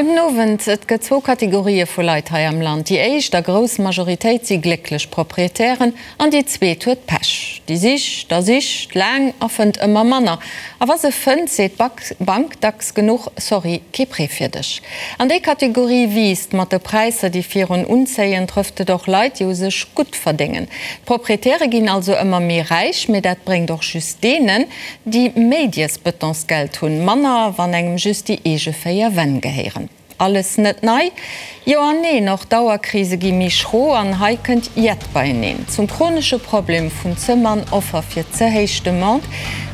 Gudden Owend. Et gëtt zwou Kategorië vu Leit hei am Land. Déi éischt a grouss Majoritéit si glécklech Proprietären an déi zweet huet Pech. Déi sicht a sicht laang a fënnt ëmmer manner. A wa se fënnt, seet d'Bank dacks genuch, Sorry, kee Prêt fir dech. An déi Kategorie wiisst mat de Präisser, déi virun unzéien, trëfft et och Leit, déi u sech gutt verdéngen. D'Proprietäre ginn also ëmmer méi räich, mee dat bréngt och just deenen, Déi méi dies Betonsgeld hunn, manner wann engem just déi eege 4 Wänn gehéieren. Alles net nei? Jo an neen, och d'Dauerkrise gi méi schro an hei kënnt jett beieneen. Zum chronesche Problem vun ze mann Offer fir ze héich Demande,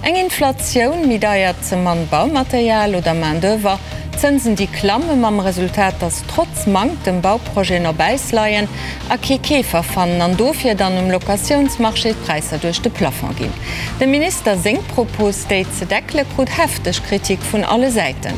eng Inflatioun, méi deiert ze mann Baumaterial oder Main d'oeuvre, Zënsen déi klamme mam Resultat, datt trotz Manktem Bauprojeten op Äis leien a kee Keefer fannen an dofir dann um Locatiounsmarché d'Präisser duerch de Plafond ginn. Dem Minister seng Propos, déi ze deckele, krut hefteg Kritik vun alle Säiten.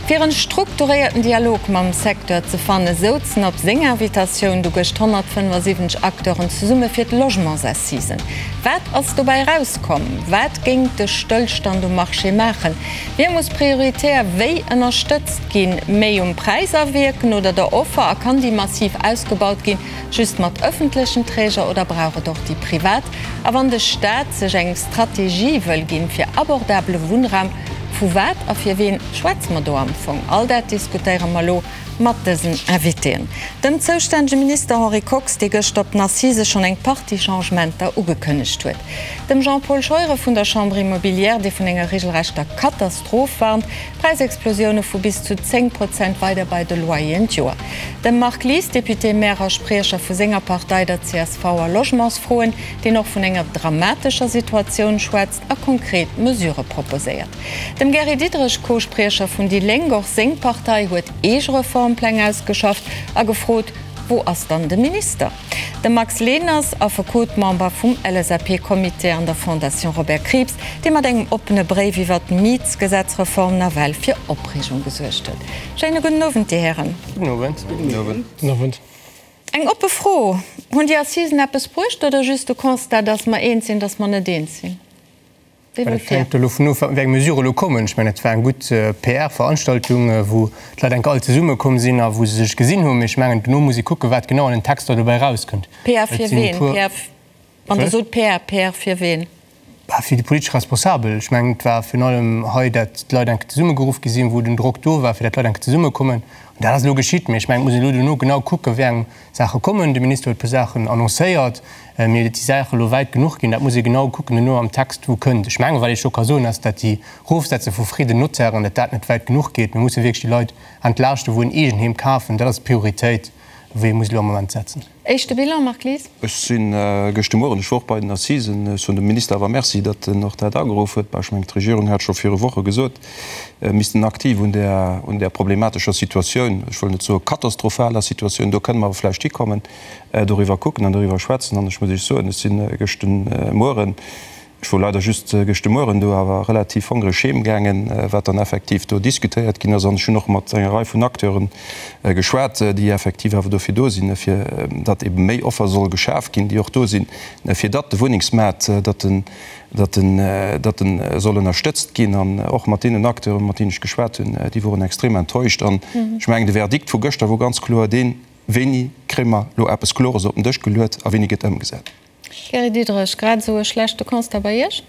Fir en strukturéierten Dialog mam Secteur ze fannen, souzen op seng Invitatioun du gëscht 175 Acteuren zesumme fir d'Logementsassisen. Wat ass dobäi erauskomm? Wat géing de Stëllstand um Marché maachen? Wie muss prioritär wéi ënnerstëtzt ginn? Méi um Präis awierken oder der Offer? A kann déi massiv ausgebaut ginn, just mat ëffentlechen Träger oder brauch et och déi privat? A wann de Staat sech eng Strategie wëll ginn fir abordabele Wunnraum, vu wat a fir ween schwätze mer do am Fong? All dat diskutéiere mer elo mat dësen Invitéen. Dem zoustännege Minister Henri Kox, dee gëscht op den Assisë schonn eng Partie Changementer ugekënnegt huet. Dem Jean-Paul Scheuren vun der Chambre Immobilière, dee vun enger regelrechter Katastroph warnt, Präisexplosioune vu bis zu 10 Prozent weider bei de Loyeren d'Joer. Dem Marc Lies, Député-Maire a Spriecher vu senger Partei, der csv a Logementsfroen, deen och vun enger dramatescher Situatioun schwätzt a konkret Mesurë proposéiert. Dem Gary Diderich, Co-Spriecher vun déi Lénk, och seng Partei huet eege Reformpläng ausgeschafft a gefrot, Wou ass dann de Minister? De Max Leners, Affekot, Member vum LSAP-Comité an der Fondation Robert Krieps, dee mat engem oppene Bréif iwwer d'Mietsgesetzreform nawell fir Opreegung gesuergt huet. Schéine gudden Owend, Dir Hären. Gudden Owend. Gudden Owend. Eng oppe Fro, Hunn déi Assisen eppes bruecht oder just de Constat, dass mer eens sinn, dass mer net eens sinn? Wéi wëllt Et hänkt dovun of, wéi eng Mesurë elo kommen. Ech mengen, et war eng gutt PR-Veranstaltung, wou d'Leit enk all zesummekomm sinn a wou se sech gesinn hunn. Mee ech mengen, dono muss ee kucken, wat genau an den Texter dobäi erauskënnt. PR fir ween? PR, wann Der sot PR, PR fir ween? Bah, fir déi politesch Responsabel. Ech mengen, et war virun allem hei, dat d'Leit enk zesummegeruff gi sinn, wou den Drock do war, fir dat d'Leit enk zesummekommen. An dat ass elo geschitt. Mee ech mengen, et muss een elo dono genau kucken, wéi eng Saache kommen. De Minister huet e puer Saachen annoncéiert, mee et déi Saache elo wäit genuch ginn, dat muss ee genau kucken duerno am Text, wou kënnt. Ech mengen, wat ee scho ka soen, ass, dat déi Rofsetze vu Frais de notairen, dat dat net wäit genuch geet. Mir musse wierklech déi Leit entlaaschten, wou en Eegenheem kafen. Dat ass d'Prioritéit, wou ee muss elo am Moment setzen. Éischte Bilan, Marc Lies? Ech si gëscht de Mueren, ech wor och bei den Assisen, ech soen dem Minister awer Merci, datt en och dat ageruff huet. Bah, ech mengen, d'Regierung hat scho viru Woche gesot, missten aktiv un där, un där problematescher Situatioun, ech wëll net soe katastrophaler Situatioun, do kënne mer awer vläicht hikommen, doriwwer kucken an doriwwer schwätzen. An ech muss Iech soen, ech si gëscht de Mueren, ech wor leider just gëscht de Mueren do, awer relativ hongreg heemgaangen, wat dann effektiv do diskutéiert ginn ass. An ech hunn och mat enger Rei vun Acteure geschwat, déi effektiv awer dofir do sinn, fir datt ebe méi Offer soll geschaf ginn, déi och do sinn, fir datt de Wunnengsmaart, datt den, datt en, datt en soll ënnerstëtzt ginn. An och mat deenen Acteuren, mat deenen ech geschwat hunn, déi woren extrem enttäuscht. An ech mengen, de Verdikt vu gëschter wor ganz kloer deen, Wéini kréie mer elo eppes Klores op den Dësch geluet a wéini gëtt ëmgesat? Gary Diderich, Grad esou e schlechte Constat bei Iech?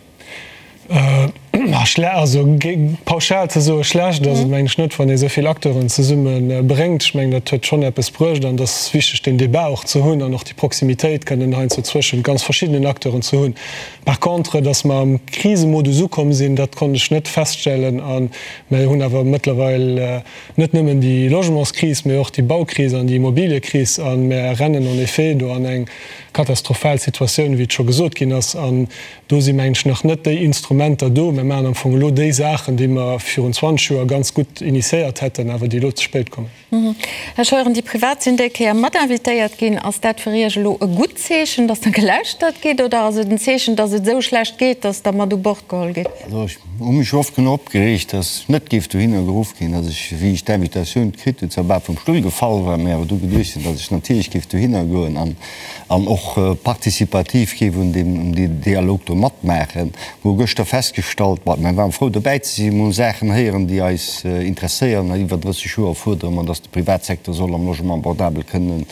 Also pauschal ze soe schlecht ass et mengen ech net, wann ee esou vill Acteuren zesumme bréngt. Ech mengen dat huet schonn eppes bruecht an et ass wichteg deen Débat och ze hunn an och déi Proximitéit kënnen heiansdo zwëschent ganz verschiddenen Acteuren ze hunn. Par contre, datt mer am Krisemodus ukomm sinn, dat konnt ech net feststellen a mer hunn awer mëttlerweil net nëmmen déi Logementskris, mä och déi Baukris an déi Immobiliekris a mer rennen en effet do an eng katastrophal Situatioun, wéi et scho gesot ginn ass. An do si mengen ech nach net déi Instrumenter do. Mer maachen am Fong elo déi Saachen, déi mer virun 20 Joer ganz gutt initiéiert hätten, awer déi elo ze spéit kommen. Här Scheuren, déi Privat sinn déi Kéier mat invitéiert ginn. Ass dat fir Iech elo e gutt Zeechen, datt der gelauschtert gitt, oder ass et en Zeechen, datt et esou schlecht geet, datt der mat u Bord geholl gitt? Also ech hu mech oft genuch opgereegt, datt ech net géif dohinner geruff ginn, datt ech, wéi ech d'Invitatioun kritt hunn, zwar bal vum Stull gefall war, mä awer du geduecht hunn, datt ech natierlech géif dohinner goen an an och participativ géif un deem Dialog do matmaachen. Mer hu gëschter festgestallt, bon. Mir waren frou dobäi ze sinn. Mir hu Saachen héieren, déi eis interesséieren. Iwwer 30 Joer fuerdere mer, datt de Privatsecteur soll am Logement abordable kënne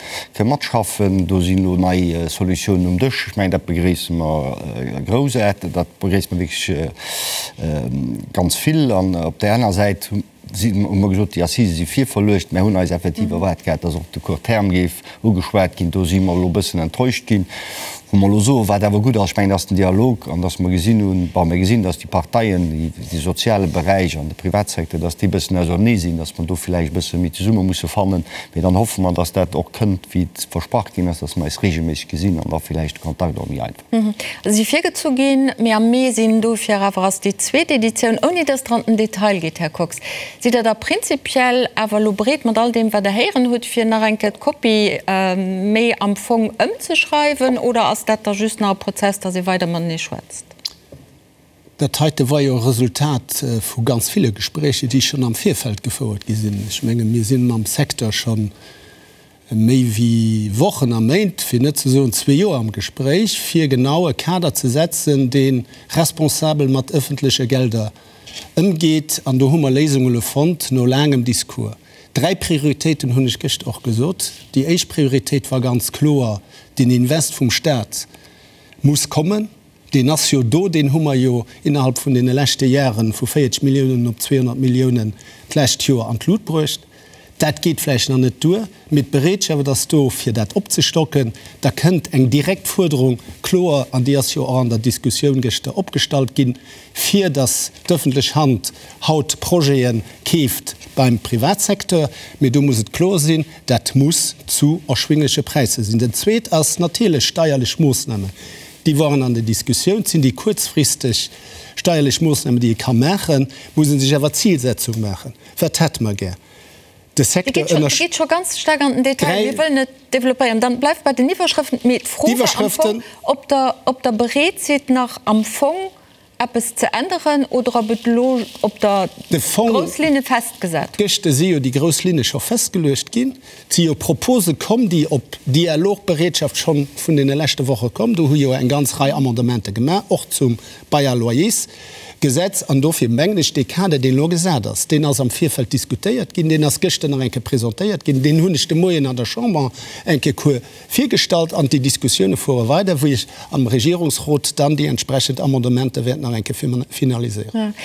matschaffen. Do sinn elo nei Solutiounen um Dësch. Ech mengen, dat begréisse mer groussaarteg. Dat begréisse mer wierklech ganz vill. An op där aner Säit Si hu mer gesot, déi Assisë si virverluecht. Mär hunn eis effektiv erwaart gehat, dass och de Court terme géif ugeschwat ginn. Do si mer elo e bëssen enttäuscht ginn. Wou mer elo soen, wat awer gutt ass, ech mengen, ass den Dialog an dass mer gesinn hunn, bon, mir gesinn, dass déi Parteien, de soziale Beräich an de Privatsecteur, dass déi e bëssen ausernee sinn, dass mer do vläicht e bësse méi zesumme musse fannen. Mee dann hoffe mer, dass dat och kënnt, wéi et versprach ginn ass, dass mer eis regelméisseg gesinn an da vläicht de Kontakt och méi einfach. Si virgezu ginn, mee am Mee sinn dofir awer ass déi zweet Editioun, ouni dass Der an den Detail gitt, Här Kox. Sidd Der da prinzipiell awer elo bereet, mat all deem wat Der héieren hutt, fir nach eng Kéier d'Kopie méi am Fong ëmzeschreiwen, oder ass dat da just nach e Prozess, dass ee weider matenee schwätzt? Dat heite war jo e Resultat vu ganz ville Gespréicher, déi schonn am Virfeld gefouert gi sinn. Ech menge mir si mam Secteur scho méi wéi Wochen a Méint, fir net ze soen zwee Joer am Gespréich, fir genau e Kader ze setzen, dee responsabel mat ëffentleche Gelder ëmgeet. An do hu mer Léisunge lo fonnt no laangem Discours. Dräi Prioritéiten hunn ech gëscht och gesot. Déi éischt Prioritéit war ganz kloer, Den Invest vum Stat muss kommen. Deen ass jo do, deen hu mer jo innerhalb vun deene leschte Jahre vu 40 Milliounen op 200 Milliounen d'lescht Joer an d'Lut bruecht. Dat geet vläicht nach net duer, mee d'Bereetschaft ass do, fir dat opzestocken. Da kënnt eng direkt Fuerderung, kloer, an déi ass jo och an der Diskussioun gëschter opgestallt ginn, fir datt d'ëffentlech Hand haut Projete keeft beim Privatsecteur. Mee do muss et kloer sinn, dat muss zu erschwingleche Präisser sinn. Dat Zweet ass natierlech steierlech Moossnamen. Déi waren an der Diskussioun. Et sinn déi kuerzfristeg steierlech Moossnamen, déi ee ka maachen, muss ee sech awer Zilsetzung maachen. Wat hätte mer gär? De Secteur ënner. Dir gitt scho ganz staark an den Detail. Mir wëllen et développéieren. Dann bleift bei den Iwwerschrëften. Mee d'Fro war am Fong, ob Der, ob Der bereet sidd, nach am Fong eppes ze änneren oder ob et elo op der De Fong, grouss Linne festgesat hutt. Gëschter si jo déi grouss Linne scho festgeluecht ginn. Et si jo Propose komm, déi op Dialogbereetschaft scho vun deene leschte Woche komm. Do hu jo eng ganz Rei Amendementer gemaach, och zum Bail à loyers Gesetz. An dofir mengen ech, dee Kader, deen elo gesat ass, deen ass am Virfeld diskutéiert ginn, deen ass gëschter nach eng Kéier presentéiert ginn, deen hunn ech de Moien an der Chamber eng Kéier kuer virgestallt an déi Diskussioune fuere weider, wou ech am Regierungsrot dann déi entsprechend Amendementer wäert nach eng Kéier finaliséieren.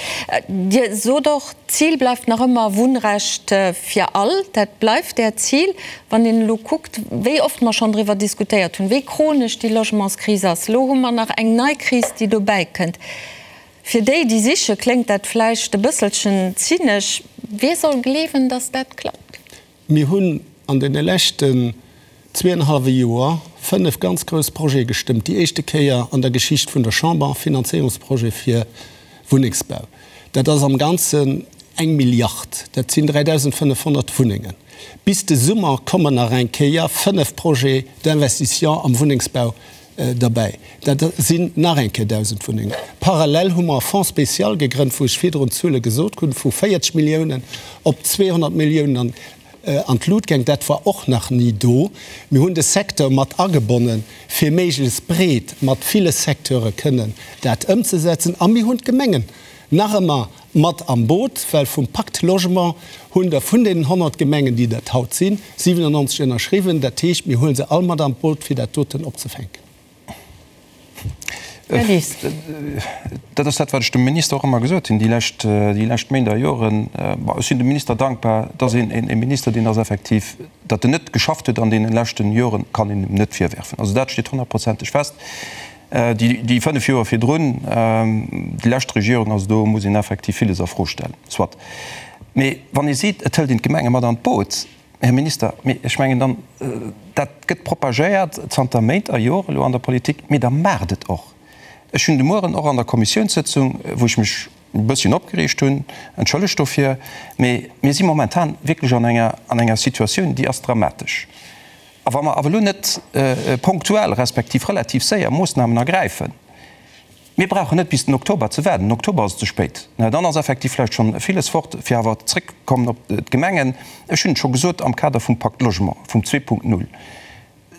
Dir sot och, d'Zil bleift nach ëmmer Wunnrecht fir all. Dat bleift Äert Zil. Wann een elo kuckt, wéi oft mer schonn driwwer diskutéiert hunn, wéi chronesch déi Logementskris ass, elo hu mer nach eng nei Kris, déi dobäi kënnt. Fir déi, déi siche, kléngt dat vläicht e bësselchen zynesch. Wie soll gleewen, datt dat klappt? Mir hunn an deene leschten zweeënhallwe Joer fënnef ganz grouss Projete gestëmmt, déi éischte Kéier an der Geschicht vun der Chamber, Finanzéierungsprojet fir Wunnengsbau. Dat ass am Ganzen eng Milliard, dat sinn 3.500 Wunnengen. Bis de Summer kommen nach eng Kéier fënnef Projets d'investissement am Wunnengsbau derbäi. Dat sinn nach eng Kéier 1.000 Wunnengen. Parallel hu mer e Fonds spécial gegrënnt, wou ech virdrun d'Zuele gesot hunn, vu 40 Milliounen op 200 Milliounen an d'Lut gaang. Dat war och nach ni do. Mir hunn de Secteur mat agebonnen, fir méiglechst breet mat ville Secteure kënnen dat ëmzesetzen. A mir hunn d'Gemengen nach ëmmer mat am Boot, well vum Pacte Logement hunn der vun deenen 100 Gemengen, déi dat haut sinn, 97 ënnerschriwwen. Dat heescht, mir huele se all mat an d'Boot, fir dat doten opzefänken. Här Lies. Dat ass dat, wat ech dem Minister och ëmmer gesot hunn déi lescht, déi lescht Méint a Joren. Bon, ech sinn dem Minister dankbar, dass een, e Minister, deen ass effektiv, datt en net geschafft huet an deene leschten Joren, kann een em net virwerfen. Also dat steet honnertprozenteg fest. Déi 5 Joer virdrun, déi lescht Regierung, also do muss een effektiv villes a Fro stellen. Soit. Mee wann ee seet, et hëlt een d'Gemenge mat an d'Boot, Här Minister, mee ech mengen dann, dat gëtt propagéiert zanter Méint a Joren elo an der Politik, mee da maacht et och. Ech hunn de Mueren och an der Kommissiounssëtzung, wou ech mech e bësschen opgereegt hunn, entschëllegt dofir, mee mir si momentan wierklech an enger, an enger Situatioun, déi ass dramatesch. A wa mer awer elo net ponktuell respektiv relativ séier Moossnamen ergräifen, mir brauchen net bis den Oktober ze waarden, den Oktober ass et ze spéit, dann ass effektiv vläicht schonn villes fort, fir awer zréckkommen op d'Gemengen, ech hunn et scho gesot am Kader vum Pacte Logement, vum 2.0.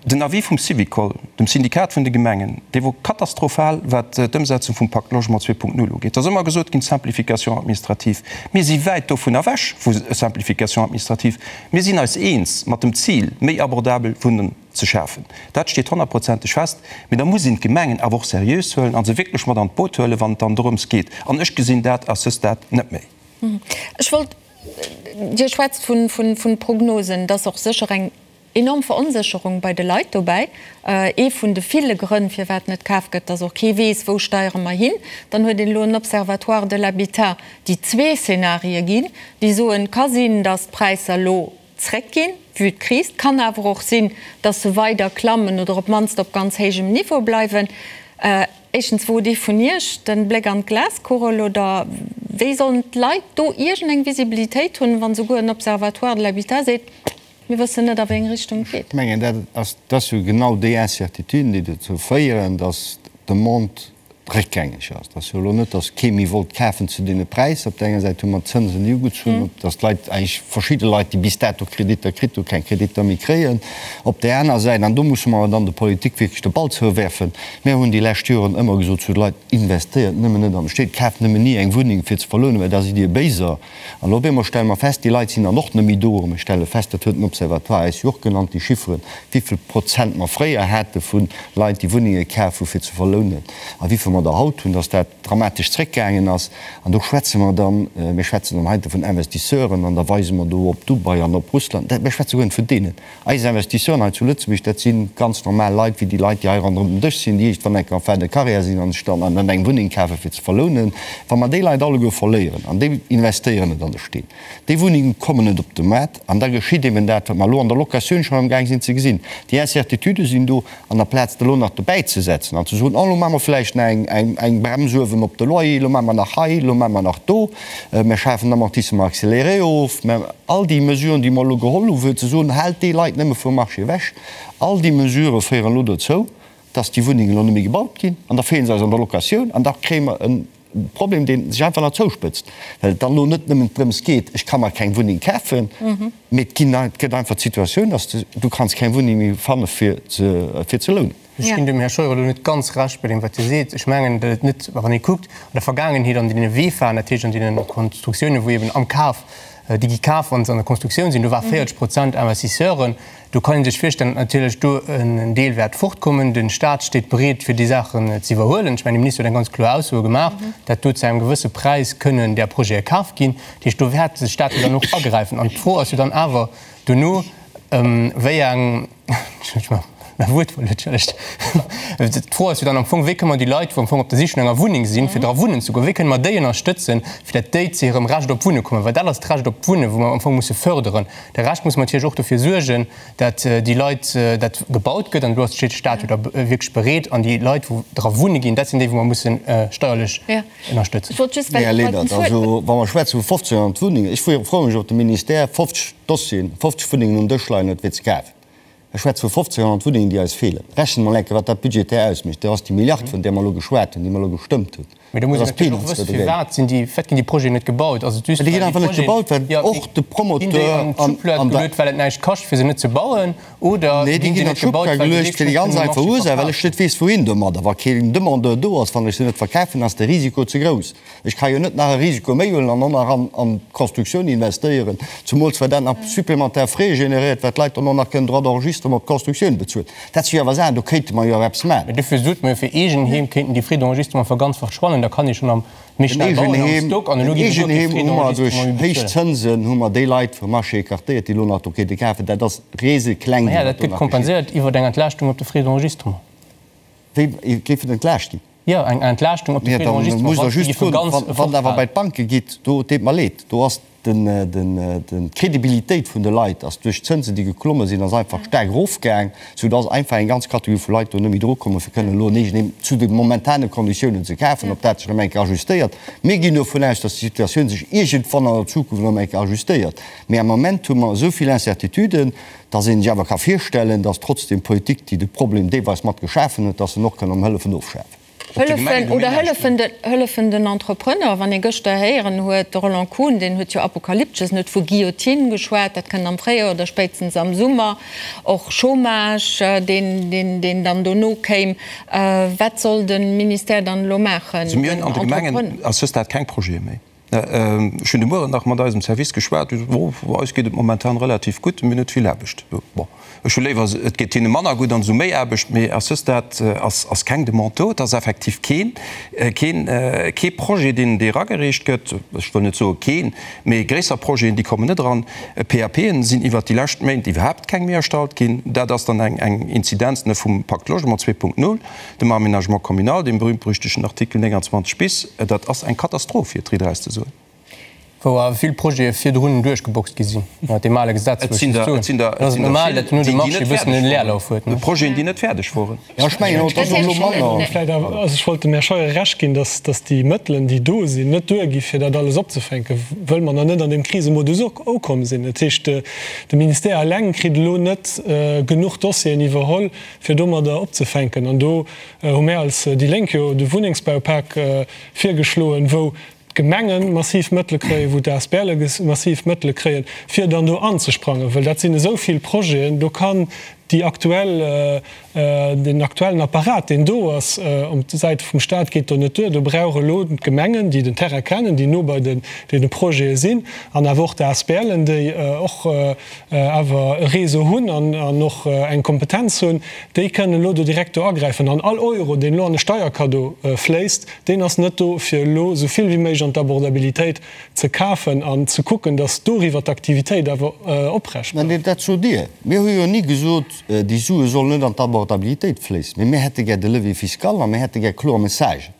Den Avis vum Syvicol, dem Syndikat vun de Gemengen, dee wor katastrophal, wat d'Ëmsetzung vum Pacte Logement 2.0 ugeet. Et ass ëmmer gesot ginn, Simplification administrative. Mir si wäit dovun ewech vu Simplification administrative. Mir sinn eis eens mat dem Zil, méi abordabel Wunnen ze schafen. Dat steet honnertprozenteg fest. Mee da muss een d'Gemengen awer och seriös huelen a se wierklech mat an d'Boot huelen, wann et dann dorëms geet. An ech gesinn dat à ce stade net méi. Ech wollt, Dir schwätzt vu Prognosen, et ass och sécher eng Enorm Veronsécherung bei de Leit dobäi. Ee vun de ville Grënn, firwat net kaf gëtt, dass och kee weess, wou steiere mer hin. Dann huet een elo en Observatoire de l'habitat, déi zwee Szenarië ginn, déi soen, ka sinn, dass d'Präisser elo zréckginn, vue d'Kris. Et kann awer och sinn, dass se weider klammen oder op d'mannst op ganz héijem Niveau bleiwen. Éischtens, wot ee vun Iech den Bléck an d'Glaskugel oder wéi sollen d'Leit do iergendeng Visibilitéit hunn, wann souguer en Observatoire de l'habitat seet, Mir wëssen net, a wéi eng Richtung et geet. Ech mengen, dat ass, dat ass jo genau déi Incertituden, déi dozou féieren, datt d'Demande réckgängeg ass. Et ass jo elo net, datt kee méi wollt kafen zu deene Präisser. Op där enger Säit hu mer d'Zënsen, déi ugezunn hunn, datt d'Leit, eigentlech verschidde Leit, déi bis dato Kreditter kritt hunn, keng Kreditter méi kréien. Op där aner Säit, an do musse mer awer dann der Politik wierklech de Ball zouwerfen, mir hunn déi lescht Joren ëmmer gesot zu de Leit, Investéiert nëmmen net an de Stéit, kaaft nëmmen ni eng Wunneng fir ze verlounen, well da sidd Dir Béiser. An op eemol stelle mer fest, déi Leit sinn dann och net méi do. A mir stelle fest, dat huet den Observatoire eis jo och genannt, déi Chifferen, wéivill Prozent mer fréier hate vu Leit, déi Wunnenge kaf hu fir ze verlounen, a wéivill mer der haut hunn, dass dat dramatesch zréckgaangen ass. An do schwätze mer dann, mir schwätzen dann heite vun Investisseuren an da weise mer do op Dubai an op Russland. Mir schwätze guer net vun deenen. Eis Investisseuren hei zu Lëtzebuerg, dat si ganz normal Leit, wéi déi Leit, déi hei ronderëm den Dësch sinn, déi iergendwann eng Kéier en fin de carrière sinn an sech dann an eng Wunneng kafen, fir ze verlounen. Wa mer déi Leit alleguer verléieren, an déi investéieren net an de Steen, déi Wunnenge kommen net op de Maart, an da geschitt eben dat, wat mer elo an der Locatioun schonn amgaang sinn ze gesinn, Déi Incertitudë sinn do, an aplaz elo nach dobäizesetzen an ze soen, oh, elo maache mer vläicht nach eng Brems uewen op de Loyer, elo maache mer nach hei, elo maache mer nach do, mer schafen Amortissement accéléré of, mer, all déi Mesuren, déi mer elo geholl hu fir ze soen, haalt déi Leit nëmme vum Marché ewech, all déi Mesurë féieren elo dozou, dass déi Wunnengen elo net méi gebaut ginn an da feele se eis an der Locatioun an da kréie mer e Problem, dee sech einfach nach zouspëtzt, well et dann elo net nëmmen drëms geet, ech ka mer keng Wunneng kafen, mee et ginn, et gëtt einfach d'Situatioun, dass de, du kanns keng Wunneng méi fanne fir ze, fir ze lounen. Ech ginn dem Här Scheuer elo net ganz Recht bei deem, wat hie seet. Ech mengen, datt et net, wann ee kuckt an der Vergaangenheet an deene VEFAen, dat heescht an deene Konstruktiounen, wou eben am Kaf, déi gi kaf, wa se an der Konstruktioun sinn, do war 40 Prozent Investisseuren. Do kann ee sech virstellen, datt natierlech do en Deel wäert fortkommen. De Stat steet bereet, fir déi Saachen ze iwwerhuelen. Ech mengen, de Minister huet eng ganz kloer Ausso gemaach, datt do zu engem gewësse Präis kënnen där Projete kaf ginn. Dat heescht, do wäert de Stat jo dann och agräifen. An d'Fro ass jo dann awer dono, wéi eng, mäi Wuert verluer, entschëllegt. D'Fro ass jo dann am Fong, wéi kënne mer déi Leit, wou am Fong op der Sich no enger Wunneng sinn, fir dra wunnen ze goen, wéi kënne mer déi ënnerstëtzen, fir datt déi zu hirem Recht op Wunne kommen? Well dat ass d'Recht op d'Wunnen, wou mer am Fong musse fërderen. De Rescht muss mer natierlech och dofir suergen, datt déi Leit, datt gebaut gëtt. An do ass de Stat jo da wierklech bereet. An déi Leit, wou dra wunne ginn, dat sinn déi, wou mer musse steierlech ënnerstëtzen. Här Lenert, also wa mer schwätze vu 1.500 Wunnengen, ech froe mech, ob de Ministère 50 Dossieren, 50 Wunnengen um Dësch leien huet, fir ze kafen. Ech schwätze vu 1.500 Wunnengen, déi eis feelen. Rechent mol eng Kéier, wat dat budgetär ausmécht. Dat ass déi Milliard, vun där mer elo geschwat hunn, déi mer elo gestëmmt hunn. Mee do muss een natierlech och wëssen, firwat sinn déi, firwat ginn déi Projeten net gebaut? Ass et just, well déi Projeten, net gebaut, well och de Promoteur ginn déi an d'Schublad geluet, well et näischt kascht, fir se net ze bauen, oder ginn déi net gebaut, well se wierklech net kënnen um Marché verkafen? Well ech net weess, wouhin domadder. Wa keen Demandeur do ass, wann ech se net verkafen, ass de Risiko ze grouss. Ech ka jo net nach e Risiko méi huelen an och nach an d'Constructioun investéieren, zumools well dat nach supplémentaire Frais generéiert, well d'Leit dann och nach kënnen Droits d'enregistrement op d'Constructioun bezuelen. Dat si jo awer Saachen, do kéinte mer jo awer eppes maachen. Mee dofir sot mer jo, fir Eegenheem kéinten déi Frais d'enregistrement verganzfacht schwannen, da kann ee schonn am méi schnell bauen am Stock an elo ginn se guer kee Frais d'enregistrement méi bezuelen. Duerch héich Zënsen hu mer déi Leit vum Marché écartéiert, déi elo nach do kéinte kafen. Dat ass resekleng, wat do nach geschitt. Naja, dat gëtt kompenséiert iwwer eng Entlaaschtung op de Frais d'enregistrement. Wéi géif et entlaascht ginn? Jo, eng Entlaaschtung op de Frais d'enregistrement, wann déi géife ganz Wann Der awer bei d'Banke gitt, do, et deet mer leed, do ass d'Credibilitéit vun de Leit ass duerch d'Zënsen, déi geklomme sinn, ass einfach staark erofgaang, soudass einfach eng ganz Kategorie vu Leit do net méi drukommen, fir kënnen elo en Eegenheem zu de momentane Konditiounen ze kafen. Ob dat sech erëm eng Kéier ajustéiert, mir ginn dovun aus, dass déi Situatioun sech iergendwann an der Zukunft erëm eng Kéier ajustéiert, mee am Moment hu mer esou vill Incertituden, Dass een sech awer ka virstellen, dass trotzdem d'Politik, déi de Problem deelweis mat geschafen huet, dass se en och kann erëm hëllefen ofschafen. Op de Gemengen Hëllefen hu mir oder näischt hëllefen de, hëllefen den Entrepreneur. Wann ee gëschter héieren huet, de Roland Kuhn, deen huet jo apokalyptesch, en huet vu Guillotine geschwat, dat kënnt am Fréijoer oder spéitstens am Summer, och Chômage, deen, deen, deen dann dono kéim. Wat soll de Ministère dann elo maachen? Also mir hunn an de Gemengen à ce stade keng Projete méi. Ech hunn de Mueren nach mat eisem Service geschwat, déi soten, oh, eis geet et momentan relativ gutt, mir hunn net vill Aarbecht. Bon, ech hu léiwer, et geet hinne manner gutt an se hu méi Aarbecht, mee à ce stade ass, ass keng Demande do. Et ass effektiv keen, keen, kee Projet, deen, dee eragereecht gëtt. Ech wëll net soe keen, mee gréisser Projeten, déi kommen net eran. PAPen sinn iwwert déi lescht Méint iwwerhaapt keng méi erstallt ginn. Dat ass dann eng, eng Inzidenz vum Pacte Logement 2.0. Dem Aménagement communal, deem berühmt-berüchtegten Artikel 29 bis, dat ass eng Katastroph, fir et riit eraus ze soen. Wou awer vill Projete virdrun duerchgeboxt gi sinn, ënner deem ale Gesetz, wou ech just soen, et ass normal, datt no dem Marché e bëssen en Leerlauf huet. Projeten, déi net fäerdeg woren. Jo, ech mengen och, et ass och elo manner. Vläicht awer, also ech wollt dem Här Scheuer Recht ginn, datt, datt déi Mëttelen, déi do sinn, net duergi fir dat alles opzefänken, wëll mer nach net an deem Krisemodus ukomm sinn. Dat heescht, de Ministère eleng kritt elo net genuch Dossieren iwwerholl, fir domadder opzefänken. An do hu mär als déi Lénk jo de Wunnengsbaupak virgeschloen, wou d'Gemenge massiv Mëttele kréien, wou d'ASBLe massiv Mëttele kréien, fir dann do anzesprangen. Well dat sinn esou vill Projeten, do kann déi aktuell, deen aktuellen Apparat, deen do ass op Säite vum Stat, geet do net duer. Do brauch elo d'Gemengen, déi den Terrain kennen, déi no bei deene Projete sinn, an awer och d'ASBLen, déi och awer e Réseau hunn an och eng Kompetenz hunn, déi kënnen elo do direkt do agräifen. An all Euro, deen elo an e Steierkaddo fléisst, deen ass net do, fir elo esou vill wéi méiglech an d'Abordabilitéit ze kafen an ze kucken, datt doriwwer d'Aktivitéit awer oprecht bleift. Mä dat sot Dir. Mir hu jo ni gesot, déi Sue sollen net an d'Abordabilitéit fléissen. Mee mir hätte gär de Levier fiscal a mir hätte gär kloer Messagen.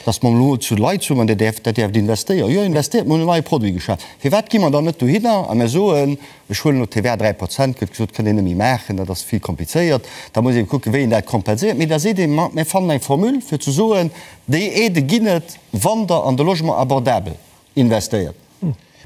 Dass mer elo zu Leit soen, Dir däerft, dat däerft investéieren. Jo, investéiert, mir hunn en neie Produit geschaf. Firwat gi mer dann net dohinner a mir soen, ech huelen elo d'TVA 3 Prozent, gëtt gesot, kënnt een net méi maachen, dat ass vill komplizéiert, da muss ee kucken, wéi een dat kompenséiert. Mee da seet ee, ma mir fannen eng Formule fir ze soen, déi Aidë ginn et, wann Der an de Logement abordabel investéiert.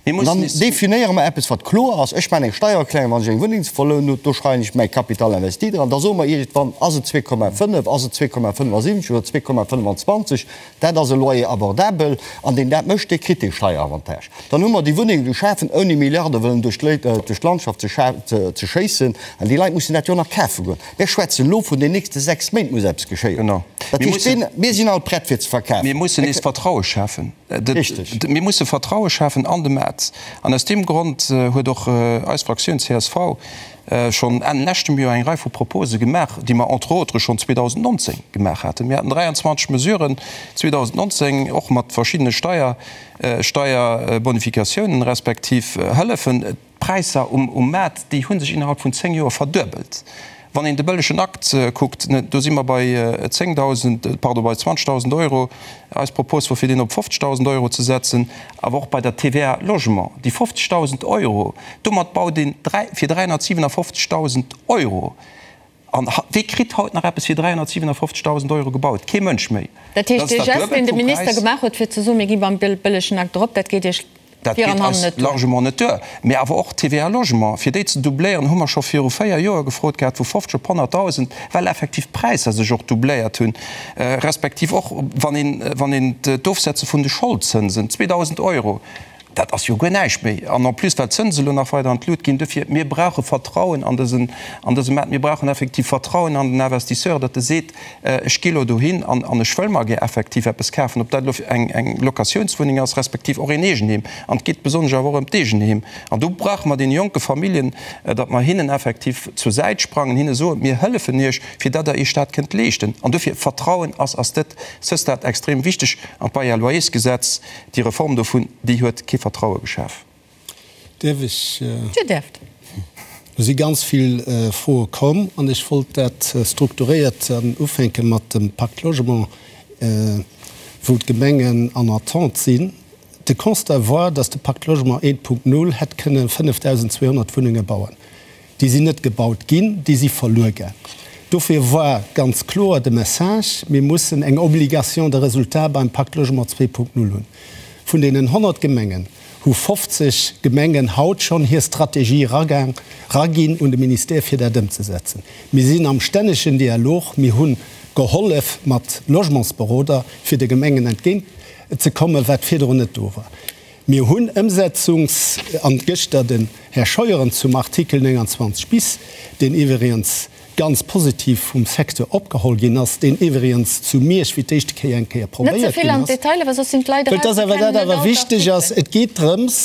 An dann definéiere mer eppes, wat kloer ass. Ech maachen eng Steiererklärung, wann ech eng Wunneng ze verlounen hunn, do schreiwen ech mäi Capital investi dran. Da soe mer iergendwann, ass et 2,5, ass et 2,75 oder 2,25, dat ass e Loyer abordabel. An deen dat mécht, dee kritt dee Steieravantage. Dann hu mer déi Wunnenge geschafen, ouni Milliarde wëllen duerch d'Landschaft ze schéissen. An déi Leit mussen dat jo nach kafe goen. Mir schwätzen elo vun den nächste 6 Méint muss eppes geschéien. Dat heescht, mir sinn all prett fir ze verkafen. Mir mussen nees Vertraue schafen. Mir musse Vertraue schafen an de Maart. An aus deem Grond huet och eis Fraktioun csv schonn Enn leschtem Joer eng Rei vu Propose gemaach, déi mer entre autres schonn 2019 gemaach haten. Mir haten 23 Mesuren 2019, och mat verschiddene Steier, Steierbonifikatiounen respektiv Hëllefen. D'Präisser um Maart, déi hu sech innerhalb vun 10 Joer verduebelt. Wann een de bëllegen Akt kuckt, do si mer bei 10.000, pardon, bei 20.000 Euro. Eis Propos wor fir deen op 50.000 Euro ze setzen. Awer och bei der TVA Logement, déi 50.000 Euro, domat baut een fir 357.000 Euro. An wee kritt haut nach eppes fir 357.000 Euro gebaut? Kee Mënsch méi. Dat heescht, dee Gest, deen de Minister gemaach huet, fir ze soen, mir gi beim bëllegen Akt erop, dat geet Iech Dat geet eis largement net duer. Mee awer och d'TVA Logement, fir déi ze doubléieren, hu mer scho viru véier Joer gefrot gehat, vu 50 op 100.000, well effektiv d'Präisser sech och doubléiert hunn, respektiv och wann een, wann een d'Ofsetze vun de Scholdzënsen, 2.000 Euro, Dat ass jo guer näischt méi. An en plus, well d'Zënse elo nach weider an d'Lut ginn. Dofir, mir brauche Vertrauen an dësen, an dëse Maart. Mir brauchen effektiv Vertrauen an den Investisseur, datt e seet, Ech gi elo dohin an, an ech wëll mer gär effektiv eppes kafen, ob dat elo eng, eng Locatiounswunneng ass, respektiv och een Eegenheem. An et geet besonnesch awer och ëm d'Eegenheem. An do brauche mer deene jonke Familljen, datt mer hinnen effektiv zur Säit sprangen, hinne soen, Mir hëllefen Iech, fir datt Der Iech dat kënnt leeschten. An dofir, Vertrauen ass, ass dat, ce stade extrem wichteg. An d'Bail-à-loyers-Gesetz, Déi Reform dovun, déi huet kee Vertraue geschaf. Däerf ech? Dir däerft. Do si ganz vill Froe komm an ech wollt dat strukturéiert ufänke mat dem Pacte Logement, wou d'Gemengen en attente sinn. De Constat war, dass de Pacte Logement 1.0 hätt kënne 5.200 Wunnenge bauen. Déi sinn net gebaut ginn, déi si verluer gaang. Dofir war ganz kloer de Message, Mir mussen eng Obligation de résultat beim Pacte Logement 2.0 hunn. Vun deenen 100 Gemengen hu 50 Gemengen haut schonn hir Strategie eraginn un de Ministère, fir dat ëmzesetzen. Mir sinn am stännegen Dialog. Mir hunn. Gehollef mat Logementsberoder, fir de Gemengen entgéint ze kommen, wat virdrun net do war. Mir hunn Ëmsetzungs-, an gëschter den Här Scheuren zum Artikel 29 bis, deen iwwerigens ganz positiv vum Secteur opgeholl ginn ass, deen iwwerigens zu Miersch fir d'éischte Kéier eng Kéier Net ze probéiert vill ginn an ass. d'Detailer, well soss sinn d'Leit Well eraus, dass se awer kennen dat net awer all wichteg ass, d'Artikelen. et geet drëms,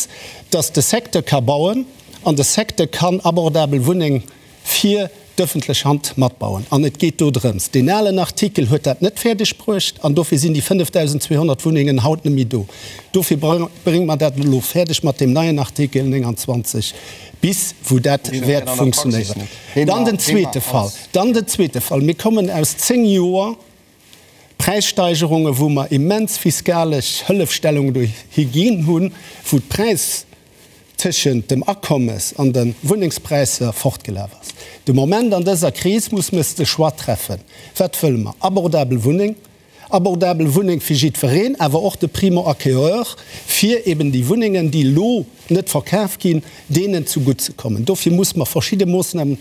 dass de Secteur ka bauen an de Secteur kann abordabel Wunneng fir d'öffentlech Hand matbauen. An et geet do drëms, deen alen Artikel huet dat net fäerdeg bruecht an dofir sinn déi 5.200 Wunnengen haut net méi do. Dofir brénge mer dat elo fäerdeg mat deem neien Artikel 29 bis, wou dat wäert funktionéieren. Dann den zweete Fall, dann den zweete Fall, Mir kommen aus zéng Joer Präissteigerungen, wou mer immens fiskalesch Hëllefstellungen dohi ginn hunn, wou d'Präis, tëschent dem Akommes an de Wunnengspräisser fortgelaf ass. De Moment an dëser Kris muss mes de Choix treffen, Wat wëlle mer? Abordabel Wunneng, abordabel Wunneng fir jiddwereen, awer och de Primo-acquéreur, fir eben déi Wunnengen, déi elo net verkaf ginn, deenen zugutt ze kommen. Dofir muss mer verschidde Moossnamen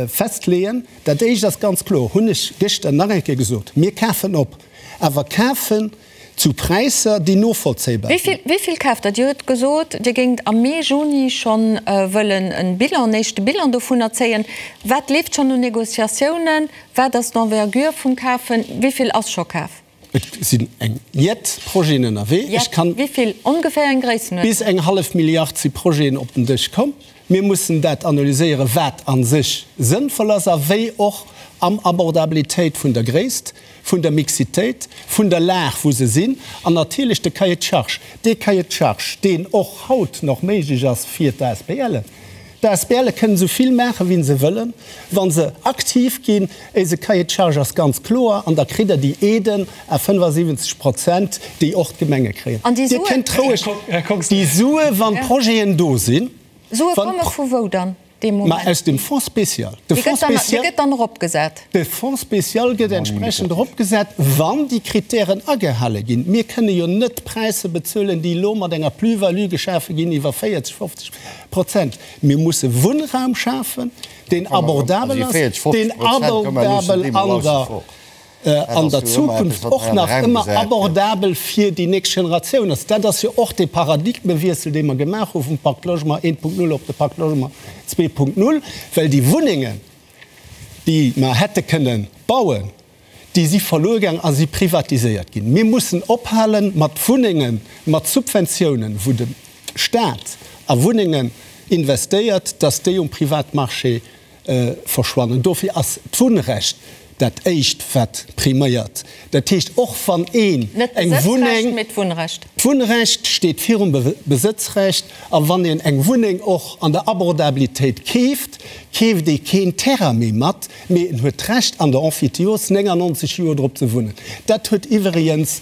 festleeën. Dat Éischt ass ganz kloer, hunn ech gëschter nach eng Kéier gesot, Mir kafen op, awer kafen Zu Präisser, déi novollzéibar sinn. Wéi vill kaaft Der? Dir hutt gesot, Dir géingt am Mee, Juni schonn wëllen e Bilan, en éischte Bilan dovunner zéien. Wat leeft schonn un Négociatiounen? Wat ass d'Envergure vum Kafen? Wéi vill ass scho kaf? Et sinn eng jett Projeten ënnerwee. Ech kann. Jett? Wéi vill? Ongeféier eng Gréissenuerdnung? Bis eng hallef Milliard si Projeten op den Dësch komm. Mir mussen dat analyséieren, wat a sech sënnvoll ass a wéi och am Abordabilitéit vun der Gréisst, vun der Mixitéit, vun der Lag, wou se sinn, an natierlech de Cahier de charges, dee Cahier de charges, deen och haut nach méiglech ass fir d'ASBLen. D'ASBLe kënnen esou vill maachen, wéi se wëllen, wa se aktiv ginn. Éise Cahier de charges ass ganz kloer an da kritt Der déi Aiden à 75 Prozent, déi och d'Gemenge kréien. An déi Dir Suen? kënnt roueg déi Sue, wann d'Projeten do sinn. Sue komme vu wou dann dee Ma Moment? aus dem Fonds spécial. De Dee Fonds gëtt dann, dee spécial, gëtt dann eropgesat. de Fonds spécial gëtt entsprechend eropgesat, wann déi Kritären agehale ginn. Mir kënne jo net Präisser bezuelen, déi elo mat enger Plus-value geschafe ginn iwwer 40, 50 Prozent. Mir musse Wunnraum schafen, deen abordabel ass, deen abordabel an der an der Zukunft och nach ëmmer abordabel fir déi nächst Generatioun ass. Dat ass jo och dee Paradigmewiessel, dee mer gemaach hu vum Pacte Logement 1.0 op de Pacte Logement 2.0, well déi Wunnengen, déi mer hätte kënnen bauen, déi si verluer gaang a si privatiséiert ginn. Mir mussen ophale mat Wunnengen, mat Subventiounen, wou de Stat a Wunnengen investéiert, dass déi um Privatmarché verschwannen. Dofir ass d'Wunnrecht dat éischt wat priméiert. Dat heescht, och wann een Net eng d'Besëtzrecht, Wunneng, mee d'Wunnrecht. D'Wunnrecht steet virum Besëtzrecht, a wann een eng Wunneng och an der Abordabilitéit keeft, keeft ee keen Terrain méi mat, mee en huet d'Recht an der Emphytéose 99 Joer drop ze wunnen. Dat huet iwwregens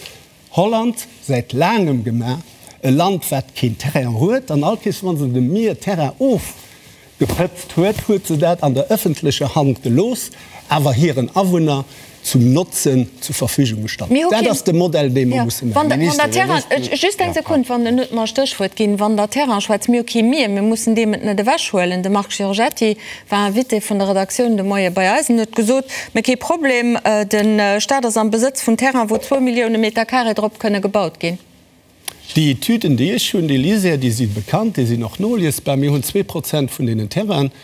Holland säit laangem gemaach, e Land wat keen Terrain huet, an all Kees wann se dem Mier Terrain ofgepëtzt huet, huet se dat an der ëffentlecher Hand gelooss, awer hiren Awunner zum Notzen zur Verfügung gestallt. Mir hu Dat keen, ass de Modell dee mer jo, musse wann maachen. der, wann der Terrain, just eng Sekund, wann en huet mer e Stéchwuert ginn, wann der Terrain schwätzt, mir hu kee Mier, mir mussen deem et net ewechhuelen. De Marc Giorgetti war Invité vun der Redaktioun de Moie bei eis en huet gesot, Mä kee Problem, de Staat ass am Besëtz vun Terrain, wou zwou Millioune Meter carré drop kënne gebaut ginn. Déi Etüden, déi ech hunn, déi LISER, déi si bekannt, déi sinn och noliesbar. Mir hunn 2% vun deenen Terrainen.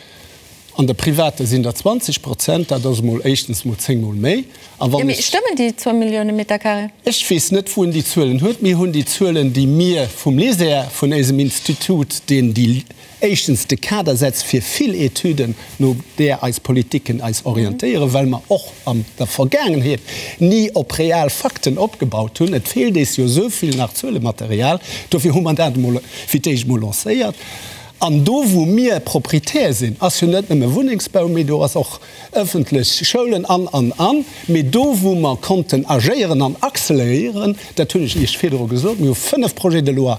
An de Private sinn der 20%. Dat ass emol éischtens emol zéngmol méi. A Jo, wann mee ech. stëmmen déi zwou Millioune Meter carré? Ech weess net, wou en déi Zuelen huet. Mir hunn déi Zuelen, déi mir vum LISER, vun éisem Institut, deen déi éischtens de Kader setzt fir vill Etüden, no där eis Politiken eis orientéieren, well mer och an der Vergaangenheet ni op real Fakten opgebaut hunn. Et feelt eis jo esou vill nach Zuelematerial. Dofir hu mer dat emol fir d'éischt emol lancéiert. An do, wou mir Proprietär sinn, ass jo net nëmme Wunnengsbau, mee do ass och ëffentlech Schoulen an, an, an. Mee do, wou mer konnten agéieren an acceleréieren, dat hunn ech Iech virdru gesot, mir hu 5 Projets de loi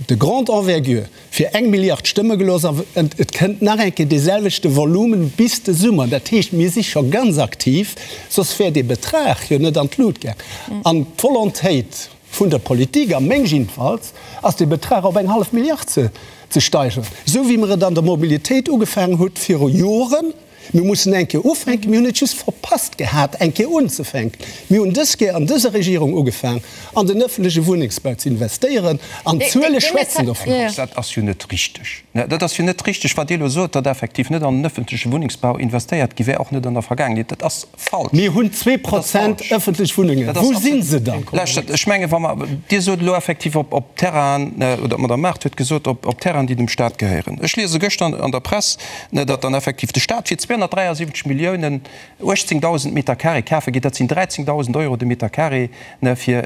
de grande envergure fir eng Milliard stëmme gelooss an et kënnt nach eng Kéier dee selwechte Volumen bis de Summer. Dat heescht, mir si scho ganz aktiv, soss wär dee Betrag jo net an d'Lut gaang. An d'Volontéit vun der Politik, a meng jiddefalls, ass dee Betrag op eng hallef Milliard ze steigeren, esou wéi mer et an der Mobilitéit ugefaangen hutt viru Joren. Mir mussen eng Kéier ufänken. Mir hunn et just verpasst gehat, eng Kéier unzefänken. Mir hunn dës Kéier an dëser Regierung ugefaang, an den öffentleche Wunnengsbau ze investéieren, an d'Zuele schwätzen dovun. Dat ass jo net richteg. Dat ass jo net richteg, wat Dir elo sot, datt effektiv net an den öffentleche Wunnengsbau investéiert gi wär, och net an der Vergaangenheet. Dat ass falsch. Mir hunn 2 Prozent öffentlech Wunnengen. Wou si se dann? Lauschtert, ech mengen, wa mer, Dir sot elo effektiv op, op Terrainen, oder d'Madame Mart huet gesot, op, op Terrainen, déi dem Stat gehéieren. Ech liese gëschter an der Press, datt dann effektiv de Stat fir 273 Milliounen 18.000 Meter carré kafe geet. Dat sinn 13.000 Euro de Meter carré fir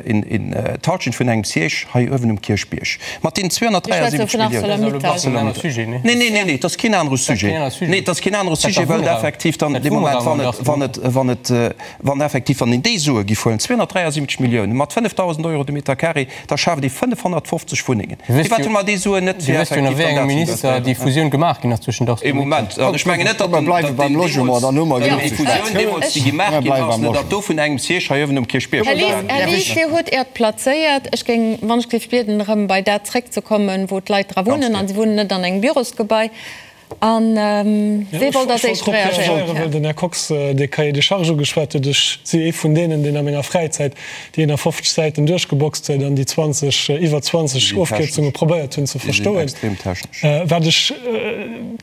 d'Halschent vun engem Siège hei uewen um Kierchbierg. Mat deenen 273 Milliounen. Arcelor-Mittal. Nee, nee, nee, nee, et ass keen anere Sujet. Nee, et ass keen anere Sujet, well et effektiv dann dee Moment, wann et, wann et, wann et, wann effektiv, wann een déi Sue giff huelen, 273 Milliounen mat 5.000 Euro de Meter carré, da schaaft ee 550 Wunnengen. Firwat hu mer déi Suen net fir effektiv dann dat ze investéieren? Déi Fusioun gemaach ginn ass zwëschen Ee Moment, an ech mengen net, datt den, datt deen deemools, déi Fusioun deemools, déi gemaach ginn ass, net datt do vun engem Siège hei uewen um Kierchbierg Här Lies, Här Lies, Dir hutt Äert plazéiert. Ech géing, wann ech géif bieden, erëm bei dat zréckzekommen, wou d'Leit dra wunnen, a si wunnen net an engem Bürosgebai. A wee wollt als éischt reagéieren? Ech wollt drop reagéieren, well den Här Kox dee Cahier des charges ugeschwat huet. Ech si ee vun deenen, deen a menger Fräizäit déi 51 Säiten duerchgeboxt huet an déi 20, iwwer 20 Ofkierzunge probéiert hunn ze verstoen. Wat ech,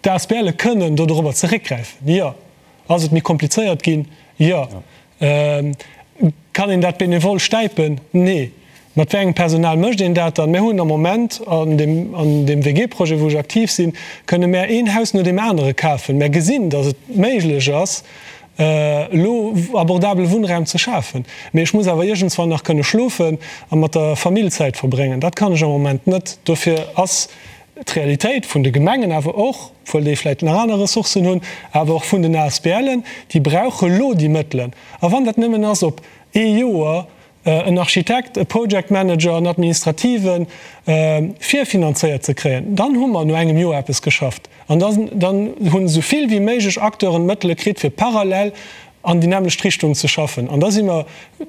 d'ASBLe kënnen do dorobber zeréckgräifen, jo. Ass et méi komplizéiert ginn? Jo. Kann een dat benevol stäipen? Nee. Mat wéi engem Personal mécht een dat dann? Mär hunn am Moment an deem, an deem WG-Projet, wou ech aktiv sinn, kënne mär een Haus no deem anere kafen. Mär gesinn, datt et méiglech ass, elo abordabele Wunnraum ze schafen. Mee ech muss awer iergendswann nach kënne schlofen a mat der Famill Zäit verbréngen. Dat kann ech am Moment net. Dofir ass d'Realitéit vun de Gemengen, awer och, obwuel déi vläicht nach aner Ressourcen hunn, awer och vun den ASBLen, déi brauche lo déi Mëttelen. A wann dat nëmmen ass op ee Joer, en Architekt, e Project Manager, en Administrativen virfinanzéiert ze kréien, dann hu mer no engem Joer eppes geschafft. An dann hunn esou vill wéi méiglech Acteuren d'Mëttele kritt, fir parallel an déi nämmlecht Richtung ze schaffen. An da si mer,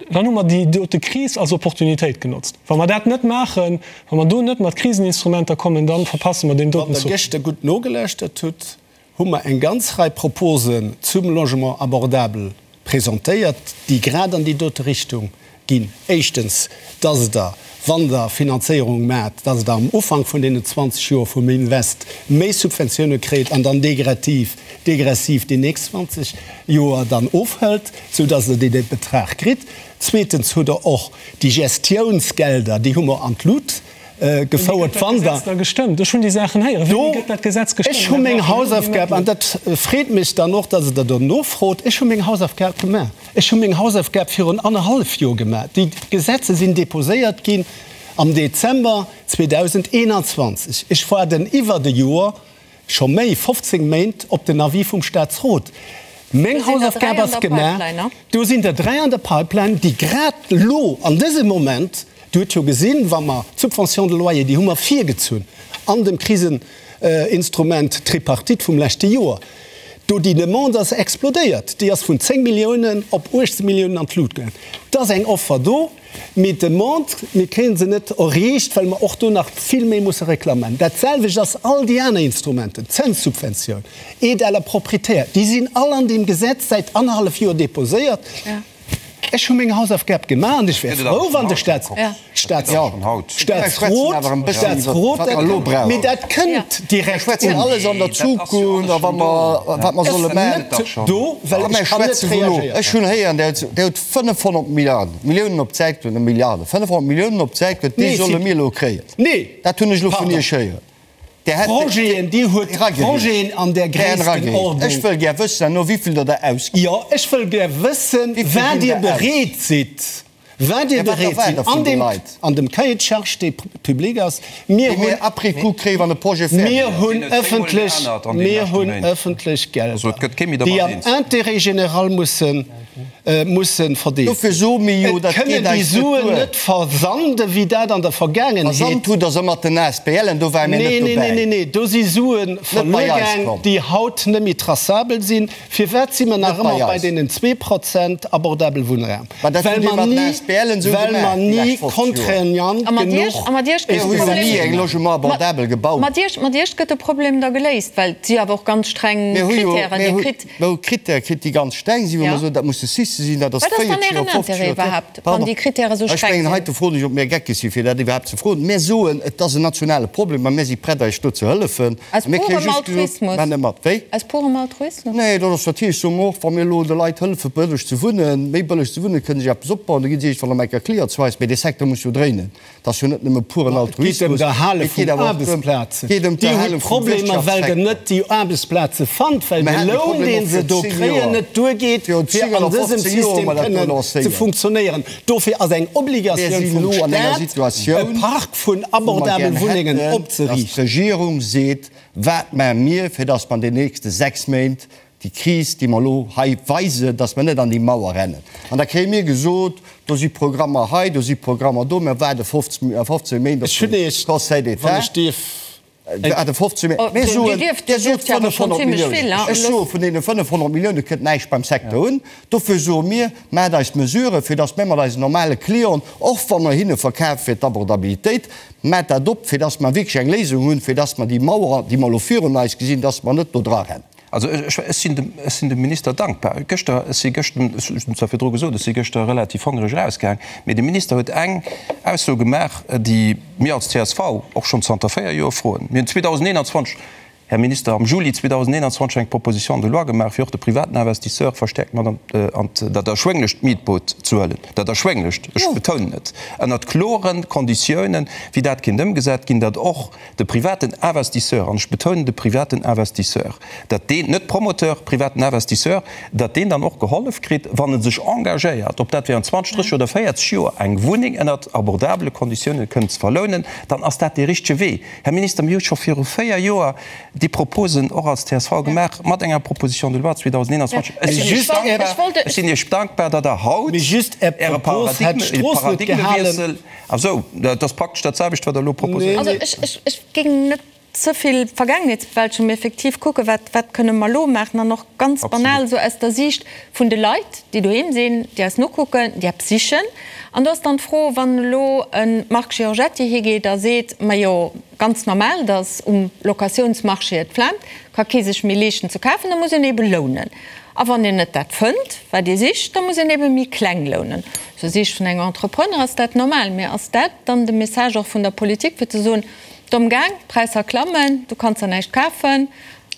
dann hu mer déi dote Kris als Opportunitéit genotzt. Wa mer dat net maachen, wa mer do net mat Kriseninstrumenter kommen, da verpasse mer deen doten Zuch. Wann Der gëschter gutt nogelauschtert hutt, hu mer eng ganz Rei Proposen zum Logement abordable presentéiert, déi grad an déi dote Richtung ginn. Éischtens, dass Der, wann Der Finanzéierung maacht, dass Der am Ufank vun deenen 20 Joer vum Invest méi Subventioune kréit an dann degressiv, degressiv déi nächst 20 Joer dann ofhëlt, soudass Der dee Betrag kritt. Zweetens hutt Der och déi Gestiounsgelder, déi hu mer an d'Lut gefouert. Wann Der. Gestëmmt? Ech hunn déi Saachen héieren. Wéini gëtt dat Gesetz gestëmmt? Ech hu meng Hausaufgab, an dat freet mech dann och, dass Der do nofrot, ech hu meng Hausaufgab gemaach. Ech hu meng Hausaufgab virun annerhallef Joer gemaach. Déi Gesetze sinn deposéiert ginn am Dezember 2021. Ech waarden iwwert e Joer, scho méi, 15 Méint, op den Avis vum Statsrot. Meng Hausaufgab ass gemaach. Do sinn der dräi an der Pipeline, déi grad elo an dësem Moment, Dir hutt jo gesinn, wa mer d'Subvention de loyer, déi hu mer virgezunn an dem Kriseninstrument Tripartite vum leschte Joer, do déi Demande ass explodéiert, déi ass vun 10 Milliounen op 18 Milliounen an d'Lut gaangen. Et ass eng Offer do. Mee d'Demande, mir kréie se net erreecht, well mer och do nach vill méi musse reklamen. Dat selwecht ass all déi aner Instrumenten, d'Zënssubventioun, Aide à la propriétaire, déi sinn all an deem Gesetz säit annerhallef Joer deposéiert. Ech hu meng Hausaufgab gemaach an ech wär frou, wann de Statsrot dat, mee dat kënnt direkt un. Alles an der Zukunft a wat mer solle maachen. Ech sinn net do, well ech kann net reagéieren. Ech hunn héieren, Dir hutt 500 Milliarden, Milliounen op d'Säit geluecht, net Milliarden, 500 Milliounen op d'Säit geluecht, déi solle mir elo kréien. Nee! Dat hunn ech elo vun Iech héieren. Där hätt. Projeten, Dir hutt Projeten an där Gréisstenordnung. Ech wëll gär wëssen, herno, wéi vill Der der ausgitt. Jo, ech wëll gär wëssen, wat Dir bereet sidd, wat Dir bereet sidd an deem, an dem Cahier de charges, dee public ass. Mir hunn. Déi mir après coup kréien, wann de Projet fäerdeg ass. Mir hunn ëffentlech, mir hunn ëffentlech Gelder, déi am Intérêt général mussen, mussen verdeelt Dofir soe mir jo, dat geet eis net duer. Et kënnen déi Suen net versanden, wéi dat an der Vergaangenheet. Versand hutt Der se mat den ASBLen, do ware mir net dobäi. Nee, nee, nee, nee, do si Sue verluer gaang, déi haut net méi traçabel sinn. Firwat si mer nach ëmmer bei deenen 2% abordabel Wunnraum? Well mer ni. Well mer ni contraignant genuch Mat Iech gëtt de Problem da geléist, well et si awer och ganz streng Krittären. Dir kritt. Mir hu Krittäre kritt, déi ganz streng sinn, wou mer soen, dat musse Sixte sinn, dat ass 40 Joer, 50 Joer. Wat ass dann Ären Intérêt iwwerhaapt, wann déi Krittäre sou streng sinn? Ech mengen, heite froen ech, ob mir geckeg sinn, fir dat iwwerhaapt ze froen. Mir soen, et ass en nationale Problem a mir si prett, eis do ze hëllefen. Aus purem Altruismus? Wéi? Aus purem Altruismus? Nee, dat ass natierlech, soe mer och, wa mir elo de Leit hëllefen, bëlleg ze wunnen, méi bëlleg ze wunnen, kënne si eppes opbauen, da gi si iergendwann op eng Kéier Client zu eis. Mee dee Secteur muss jo dréinen. Et ass jo net nëmme puren Altruismus, et geet awer och drëm, geet ëm d'Erhale vum Wirtschaftssektor. Dir hutt Problemer, well Der net déi Aarbechtsplaze fannt, well de Loun, dee se do kréien, net duergeet, fir an dësem System kënnen ze funktionéieren. Dofir ass eng Obligatioun vum Staat, e Park vun abordabel Wunnengen opzeriichten. Dass d'Regierung seet, Wat maache mir, fir dass mer an den nächste 6 Méint Déi Kris, déi mer elo hei weisen, dass mer net an déi Mauer rennen. An da kréie mir gesot, do si Programmer hei, do si Programmer do, mer waarde 15 Méint op de Conseil d'État. Waarde 15 Méint. Mir soen, Dir sot 500 Milliounen. Ech soe vun deene 500 Millioune kënnt näischt beim Secteur un. Dofir soe mir, maacht eis Mesuren, fir dass mir mat eisen normale Clienten, och wa mer hinne verkafe fir d'Abordabilitéit, maacht dat op, fir dass mer wierklech eng Léisung hunn, fir dass mer déi Mauer, déi mer elo virun eis gesinn, dass mer net do drarennen. Also ech sinn dem, ech sinn dem Minister dankbar. Gëschter, ech si gëschten, ech hunn zwar virdru gesot, ech si gëschter relativ hongereg erausgaang, mee de Minister huet eng Ausso gemaach, déi mir als csv och schonn zanter 4 Joer froen. Mir hunn 2021, Här Minister, am Juli 2021 eng Proposition de loi gemaach, fir och de privaten Investisseur verstäerkt mat an dat erschwénglecht Mietboot ze huelen, dat erschwénglecht, ech betounen et, ënnert klore Konditiounen, wéi dat kéint ëmgesat ginn, datt och De privaten Investisseur, an ech betounen de privaten Investisseur, datt deen, net Promoteur, privaten Investisseur, datt deen dann och gehollef kritt, wann e sech engagéiert, ob dat während 20, 30 oder 40 Joer eng Wunneng ënnert abordabele Konditiounen kënnt ze verlounen, dann ass dat dee richtege Wee. Här Minister, mir hu scho viru 4 Joer déi Proposen och als csv gemaach, mat enger Proposition de loi 2021. Ech sinn Iech dankbar, ech sinn Iech dankbar, datt Der haut Äre Paradigmewiessel, Ah sou, dat ass praktesch dat selwecht, wat Der elo proposéiert. Also ech, ech géing net ze vill Vergaangenheetsbewältegung, mee effektiv kucken, wat, wat kënne mer elo maachen an och ganz banal esou aus der Siicht vun de Leit, déi doheem sinn, déi eis nokucken, déi eppes sichen. An do ass dann d'Fro, wann elo e Marc Giorgetti higeet a seet, Majo, ganz normal, datt um Locatiounsmarché et flaamt, ka kee sech méi leeschten ze kafen, da muss een ebe lounen. A wann een net dat fënnt, wat ee sicht, da muss een ebe méi kleng lounen. Aus der Siicht vun engem Entrepreneur ass dat normal. Mee ass dat dann de Message och vun der Politik, fir ze soen, Domm gaang, d'Präisser klammen, du kanns der näischt kafen,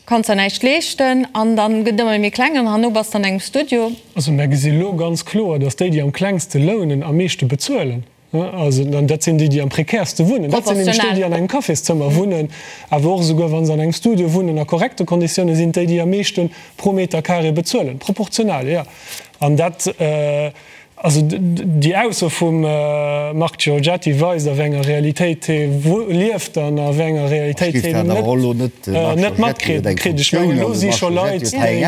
kanns der näischt leeschten an dann gëtt ëmmer méi kleng an herno bass de an engem Studio? Also mär gesi lo ganz kloer, datt déi, déi am klengste lounen, am meeschte bezuelen. Also, an dat sinn déi, déi am prekäerste wunnen. Dat sinn nämlech déi, déi an engem Cafészëmmer wunnen, awer och esouguer wa se an engem Studio wunnen a korrekte Konditiounen, sinn et déi, déi am meeschte pro Meter carré bezuelen. Proportional, jo. An dat, also déi Ausso vum Marc Giorgetti weist, a wéi enger Realitéit hie lieft an a wéi enger Realitéit hien net, net matkritt. Ech mengen, elo si scho Leit, déi.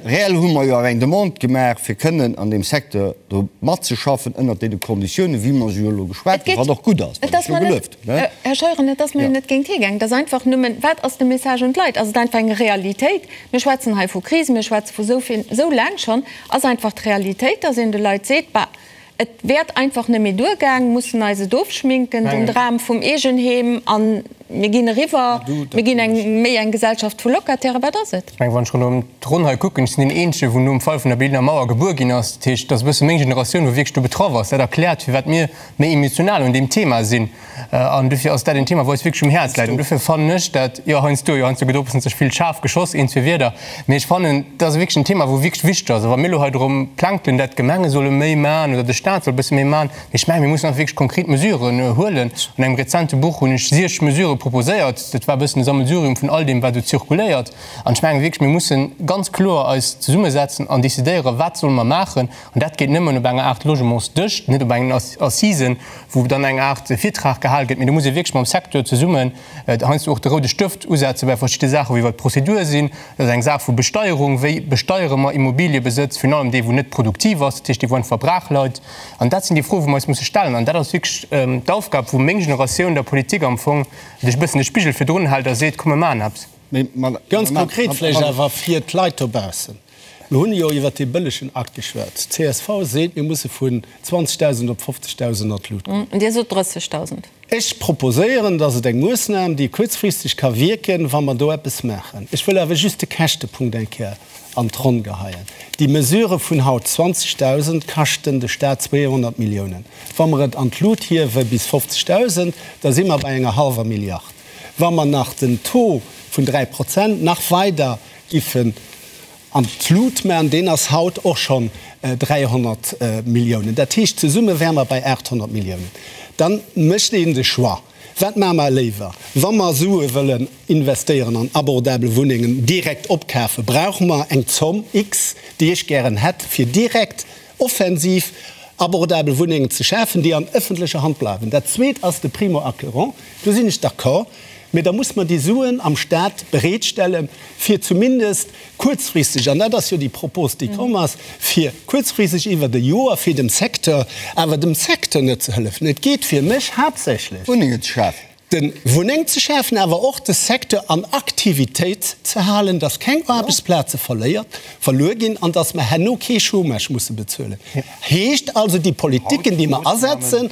Reell hu mer jo awer eng Demande gemaach, fir kënnen an deem Secteur do matzeschaffen ënnert deene Konditiounen, wéi mer se jo elo geschwat hunn, wat och gutt ass, wat ech jo gelueft hunn. Här Scheuren, et ass mer jo net géint hie gaangen. Et ass einfach nëmmen, wat ass de Message un d'Leit? Ass et einfach eng Realitéit? Mir schwätzen hei vu Kris, mir schwätze vu sou vill, sou laang schonn. Ass einfach d'Realitéit, dass een de Leit seet, Bah, et wäert einfach net méi duergaang, mussen eis et ofschminken, den Dram vum Eegenheem, a mir ginn eriwwer, mir ginn eng méi eng Gesellschaft vu Locatairen. Wat ass et? Ech mengen, wann ech ronderëm d'Ronn hei kucken, ech sinn deen Eenzegen, wou nom Fall vun der Berliner Mauer gebuer ginn ass. Dat heescht, et ass e bësse meng Generatioun, wou wierklech do betraff ass. Dat erkläert, firwat mir méi emotional un deem Thema sinn. An dofir ass dat en Thema, wou eis wierklech um Häerz läit. An dofir fannen ech dat, jo, heiansdo, jo, heiansdo gëtt och e bëssen ze vill schaarf geschoss, een, zwee Wierder, mee ech fannen, dat ass wierklech en Thema, wou wierklech wichteg ass. A wa mir elo hei drëm plänkelen, dat d'Gemenge solle méi maachen oder de Staat soll e bësse méi maachen, mee ech mengen, mir mussen einfach wierklech konkret Mesuren huelen. An engem rezente Buch hunn ech siech Mesurë proposéiert. Dat war e bëssen e Sammelsurium vun all deem, wat esou zirkuléiert. An ech mengen wierklech, mir mussen ganz kloer eis zesummesetzen an decidéieren, wat solle mer maachen. An dat geet nëmmen op enger Aart Logementsdësch, net op engen Assisen, wou dann eng Aart Virtrag gehal gëtt. Mee do muss ee wierklech mam Secteur zesummen heiansdo och de roude Stëft usetze bei verschidde Saachen, wou iwwert d'Prozedur sinn. Dat ass eng Saach vu Besteierung, Wéi besteiere mer Immobiliëbesëtz, virun allem dee wou net produktiv ass, dat heescht dee wou einfach brach leit. An dat sinn déi Froen, wou mer eis musse stellen. An dat ass wierklech d'Aufgab, wou meng Generatioun der Politik am Fong e bëssen de Spigel virdrun hält a seet, Komm mir maachen eppes. Ganz konkret vläicht awer fir d'Leit dobaussen. Mir hunn jo iwwert dee bëllegen Akt geschwat. D'CSV seet, mir musse vun 20.000 op 50.000 an d'Lut goen. Dir sot 30.000. Ech proposéieren, dass et eng Moossnam, déi kuerzfristeg ka wierken, wa mer do eppes maachen. Ech wëll awer just de Käschtepunkt eng Kéier an d'Ronn geheien. Déi Mesure vun haut, 20.000, kaschten de Stat 200 Milliounen. Wa mer et an d'Lut hiewe bis 50.000, da si mer bei enger hallwer Milliard. Wa mer nach den Taux vun 3 Prozent nach weider giffen an d'Lut maachen, deen ass haut och schonn 300 Milliounen. Dat heescht, zesumme wäre mer bei 800 Milliounen. Da mécht een de Choix, Wat maache mer léiwer? Wa mer Sue wëllen investéieren an abordabel Wunnengen direkt opkafen, brauche mer eng Zomm X, déi ech gären hätt, fir direkt offensiv abordabel Wunnengen ze schafen, déi an ëffentlecher Hand bleiwen. Dat Zweet ass de Primo-acquérant. Do sinn ech d'accord. Mee da muss mer déi Suen am Stat bereetstellen, fir zumindest kuerzfristeg, an dat ass jo déi Propos, déi komm ass, fir kuerzfristeg iwwert e Joer fir dem Secteur, awer dem Secteur net ze hëllefen. Et geet fir mech haaptsächlech. Wunnengen ze schafen. De Wunneng ze schafen, awer och de Secteur an Aktivitéit ze halen, dass keng Aarbechtsplaze verléiert, verluer ginn an dass mer herno kee Chômage musse bezuelen. Heescht also, déi Politiken, déi mer asetzen,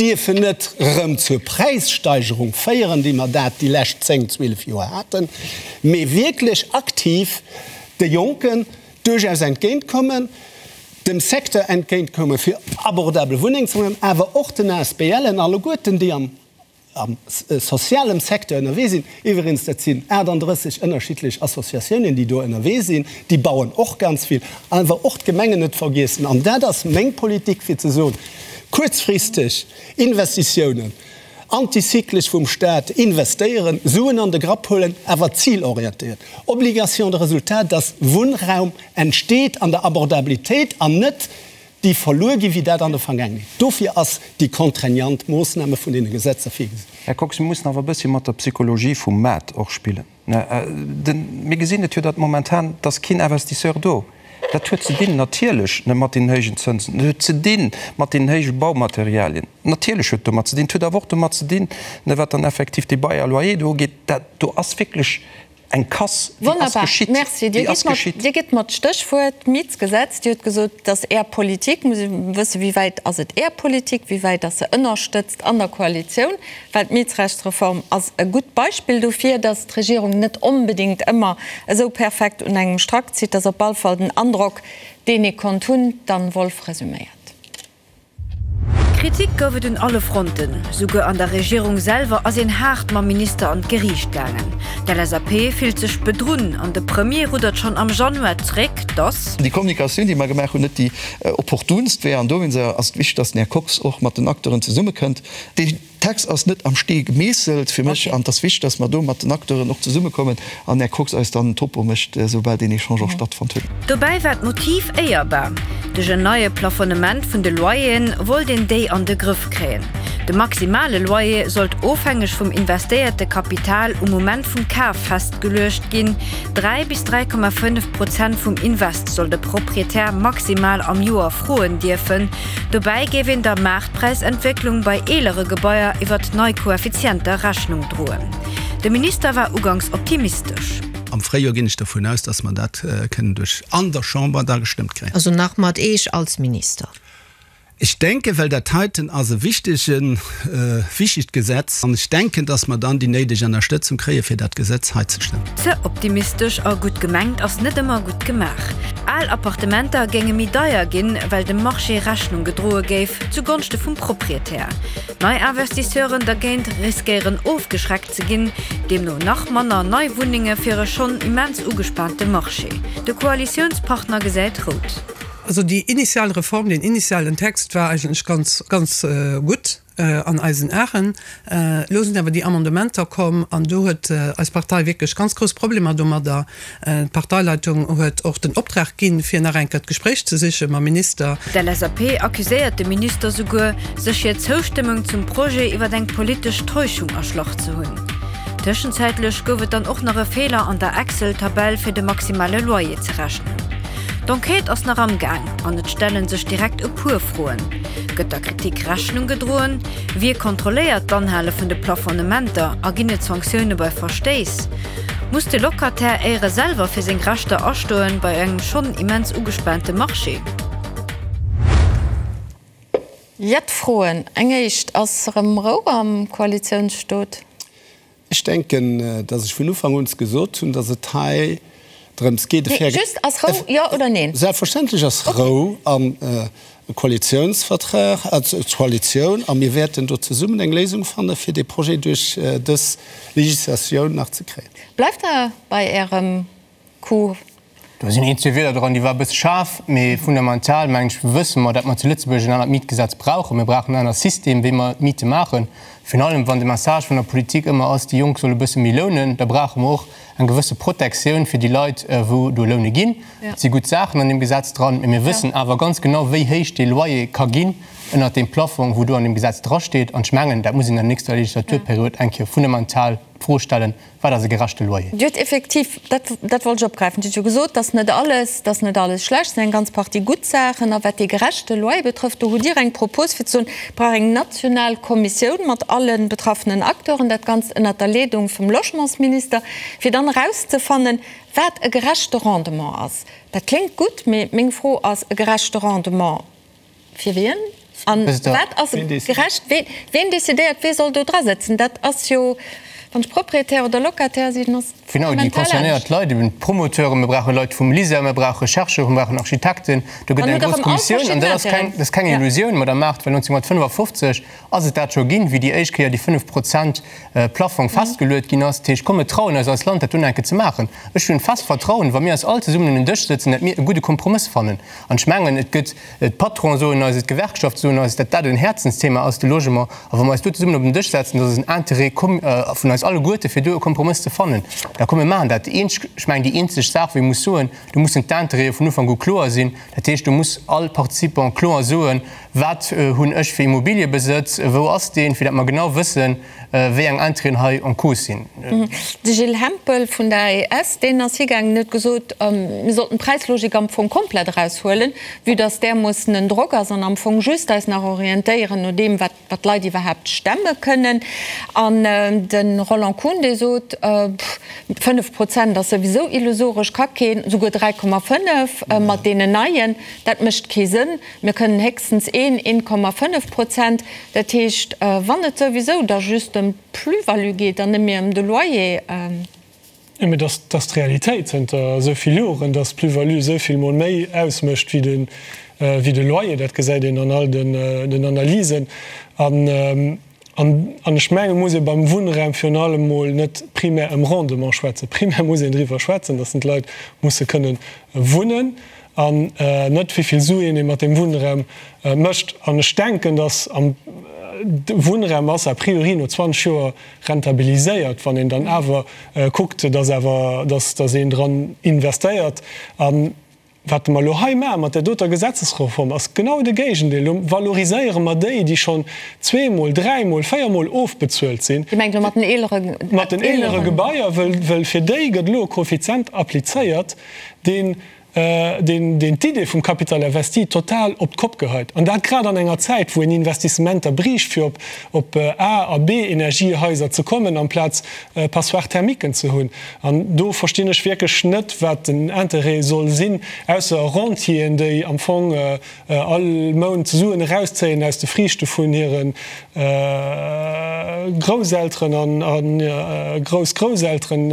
dierfen net erëm zur Präissteigerung féieren, déi mer dat déi lescht 10, 12 Joer haten, mee wierklech aktiv de Jonken duerchaus entgéintkommen, dem Secteur entgéintkommen, fir abordabel Wunneng ze maachen, awer och den ASBLen alleguerten, déi am am sozialem Secteur ënnerwee sinn, iwweregens dat sinn 38 ënnerschiddlech Associatiounen, déi do ënnerwee sinn, déi bauen och ganz vill, awer och d'Gemengen net vergiessen. An dat ass meng Politik, fir ze soen, kuerzfristeg Investitiounen, antizyklesch vum Stat investéieren, Suen an de Grapp huelen, awer zilorientéiert, Obligation de résultat, dass Wunnraum entsteet an der Abordabilitéit an net déi verluer ginn, wéi dat an der Vergaangenheet. Dofir ass déi contraignant Moossname vun deene Gesetzer virgesinn. Här Kox, mir mussen awer e bëssi mat der Psychologie vum Maart och spillen. Mir gesinn et jo, datt momentan, et ass keen Investisseur do. Dat huet ze dinn natierlech mat deenen héijen Zënsen, dat huet ze di mat deenen héije Baumaterialien. Natierlech huet et domat ze dinn. Et huet awer och domat ze dinn, wat dann effektiv dee Bail à loyer do ugeet. Dat do ass wierklech Eng Casse, déi ass Wonnerbar, geschitt, merci. Dir déi ass gitt mer, geschitt. Dir gitt mer d'Stéchwuert Mietsgesetz. Dir hutt gesot, et ass Är Politik. Muss ee wëssen, wéi wäit ass et Är Politik, wéi wäit ass se ënnerstëtzt an der Koalitioun? Well d'Mietsrechtsreform ass e gutt Beispill dofir, datt d'Regierung net onbedéngt ëmmer esou perfekt un engem Strack zitt. Ass op all Fall den Androck, deen ee konnt hunn. D'Anne Wolff resüméiert. Kritik gouf et un alle Fronten. Souguer an der Regierung selwer ass een haart mam Minister an d'Geriicht gaangen. D'LSAP fillt sech bedrunn an de Premier ruddert schonn am Januar zréck, datt. Déi Kommunikatioun, déi mer gemaach hunn, net déi opportunst wär. An dowéinst ass et wichteg, datt den Här Kox och mat den Acteuren zesummekënnt. Dee Text ass net am Stee gemeesselt fir mech an et ass wichteg, dass mer do mat den Acteuren och zesummekommen an Här Kox eis dann en Topo mécht, esoubal deen Echange och stattfonnt huet. Dobäi war d'Motiv éierbar. Duerch en neie Plafonnement vun de Loyeren wollt een déi an de Grëff kréien. De maximale Loyer sollt ofhängeg vum investéierte Kapital um Moment vum Kaf festgeluecht ginn. 3 bis 3,5 Prozent vum Invest soll de Proprietär maximal am Joer froen dierfen. Dobäi géif een der Maartpräisentwécklung bei eelere Gebaier iwwert nei Koeffizienter Rechnung droen. De Minister war uganks optimistesch. Am Fréijoer ginn ech dervun aus, dass mer dat kënnen duerch an der Chamber da gestëmmt kréien. Also nach mat Eech als Minister? Ech denken, well dat heiten ass e wichtegen, wichtegt Gesetz an ech denken, dass mer dann déi néideg Ennerstëtzung kréie fir dat Gesetz hei ze stëmmen. Ze optimistesch a gutt gemengt ass net ëmmer gutt gemaach. Al Appartementer géinge méi deier ginn, well dem Marché Rechnung gedroe géif, zu Gonschte vum Proprietär. Nei Investisseuren dergéint riskéieren ofgeschreckt ze ginn, deemno nach manner nei Wunnenge fir e schonn immens ugespaante Marché. De Koalitiounspartner gesäit rout. Also déi initial Reform, deen initialen Text war eigentlech ganz, ganz gutt an eisen Aen. Elo sinn awer déi Amendementer komm an do huet eis Partei wierklech ganz grouss Problemer domadder. D'Parteileitung huet och den Optrag ginn, fir nach eng Kéier d'Gespréich ze siche mam Minister. D'LSAP accuséiert de Minister souguer, sech hir Zoustëmmung zum Projet iwwer eng politesch Täuschung erschlach ze hunn. Tëschenzäitlech gouf et dann och nach e Feeler an der Excel-Tabell fir de maximale Loyer ze rechnen. D'Enquête ass nach am Gaang an et stelle sech direkt e puer Froen, Gëtt der Kritik Rechnung gedroen? Wie kontrolléiert d'Anhale vun de Plafonnementer a ginn et Sanktioune bei Verstéiss? Muss de Locataire éiere selwer fir seng Rechter astoen bei engem schonn immens ugespaante Marché? Jett Froen. Eng éischt, Ass erëm Rou am Koalitiounsstot? Ech denken, dass ech vun Ufank un gesot hunn, dass et hei drëms geet, e faire. Just, ass Rou, jo oder neen? Selbstverständlech ass Rou am Koalitionsvertrag, Koalitioun, a mir wäerten do zesummen eng Léisung fannen, fir dee Projet duerch dës Législatioun nach ze kréien. Bleift Der bei Ärem Coup? Do sinn een, zwee Wierder dran, déi war e bësse schaarf, mee fundamental, mengen ech, wësse mer, datt mer zu Lëtzebuerg en anert Mietgesetz brauchen. Mir brauchen en anert System, wéi mer d'Miete maachen. Virun allem, wann de Message vun der Politik ëmmer ass, déi Jonk solle e bësse méi lounen, da brauche mer och eng gewësse Protektioun fir déi Leit, wou do Loune ginn. Et si gutt Saachen an deem Gesetz dran, mee mir wëssen awer ganz genau, wéi héich dee Loyer ka ginn ënnert deem Plafong, wou do an deem Gesetz drasteet. An ech mengen, dat muss een an der nächster Legislaturperiod eng Kéier fundamental d'Fro stellen, Wat ass e gerechte Loyer? Dir hutt effektiv, dat, dat wollt ech opgräifen, Dir hutt jo gesot, dass net alles, dass net alles schlecht, et sinn eng ganz Partie gutt Saachen. A wat dee gerechte Loyer betrëfft, do hutt Dir eng Propos fir ze soen, et brauch eng national Kommissioun mat alle betraffenen Acteuren, dat Ganzt ënnert der Leedung vum Logementsminister, fir dann erauszefannen, wat e gerechte Rendement ass. Dat kléngt gutt, mee meng Fro ass, e gerechte Rendement, Fir wien? An wat ass gerecht? Ween decidéiert, wee soll do dra sëtzen? Dat ass jo, wann ech Proprietär oder Locataire sinn, ass Genau, déi fundamental concernéiert anescht. Leit, eben d'Promoteuren, mir brauche Leit vum LISER, mir brauche Chercheuren, mir brauchen Architekten. Do gëtt Dann eng hutt Der grouss erëm all Kommissioun. An verschidden dat ass keng, Intérêten. dat ass keng Ja. Illusioun, Madame Mart, well 1955 ass et dat scho ginn, wéi déi éischt Kéier déi 5 Prozent Plaffong festgeluet ginn ass. Dat heescht, komm, mir trauen eis als Land, dat dunn eng Kéier ze maachen. Ech hunn fest Vertrauen, wa mir eis all zesummen un en Dësch sëtzen, dat mir e gudde Kompromëss fannen. An ech mengen, et gëtt, d'Patronen soen eis et, d'Gewerkschafte soen eis, datt dat en Häerzensthema ass, de Logement. A wa mer eis do zesummen op den Dësch setzen, dat ass en Intérêt commun vun eis alleguerte fir do e Kompromëss ze fannen, da komm mir maachen dat. Déi eenzeg, ech mengen, déi eenzeg Saach, wou ee muss soen, do mussen d'Intérêtë vun Ufank u kloer sinn. Dat heescht, do muss all Participant kloer soen, Wat hunn ech fir Immobiliëbesëtz, wou ass deen, fir datt mer genau wëssen, wéi eng Intérêten hei en cause sinn. De Gilles Hempel vun der AES, deen ass higaangen an huet gesot, mir sollten d'Präislogik am Fong komplett eraushuelen, vue dass därmoossen en Drock ass, an am Fong just eis nach orientéieren no deem, wat d'Leit iwwerhaapt stemme kënnen. An de Roland Kuhn, dee sot, 5 Prozent ass souwisou illusoresch, ka keen, souguer 3,5 mat deenen neien, dat mécht kee Sënn. Mir kënnen héchstens een, 1,5 Prozent. Dat heescht, wann et souwisou da just ëm d'Plus-value geet an net méi ëm de Loyer. Jo, mee dat ass d'Realitéit zënter esou vill Joren, dass d'Plus-value esou vill mol méi ausmécht wéi de Loyer. Dat gesäit een an all den Analysen. An ech mengen, et muss ee beim Wunnraum virun allem emol net primär ëm Rendement schwätzen. Primär muss een driwwer schwätzen, datt d'Leit musse kënnen wunnen an net wéi vill Suen ee mat deem Wunnraum mécht. An ech denken, datt am Wunnraum ass a priori no 20 Joer rentabiliséiert, wann een dann awer kuckt, datt awer, datt een dran investéiert. Wat mer elo hei maache mat där doter Gesetzesreform, ass genau de Géigendeel. Elo valoriséiere mer déi, déi schonn zweemol, dräimol, véiermol ofbezuelt sinn. Dir mengt elo mat den eelere. Mat den eelere Gebaier, wëll fir déi gëtt elo e Koeffizient applizéiert, deen deen d'Idee vum Capital investi total op d'Kopp geheit. An dat grad an enger Zäit, wou een Investissementer briicht, fir op A a B-Energiehaiser ze kommen, amplaz Passoires thermiquen ze hunn. An do verstinn ech wierklech net, wat den Interêt soll sinn, ausser Rentieren, déi am Fong all Mount Suen erauszéien aus de Friichte vun hire Grousselteren a Groussgrousselteren,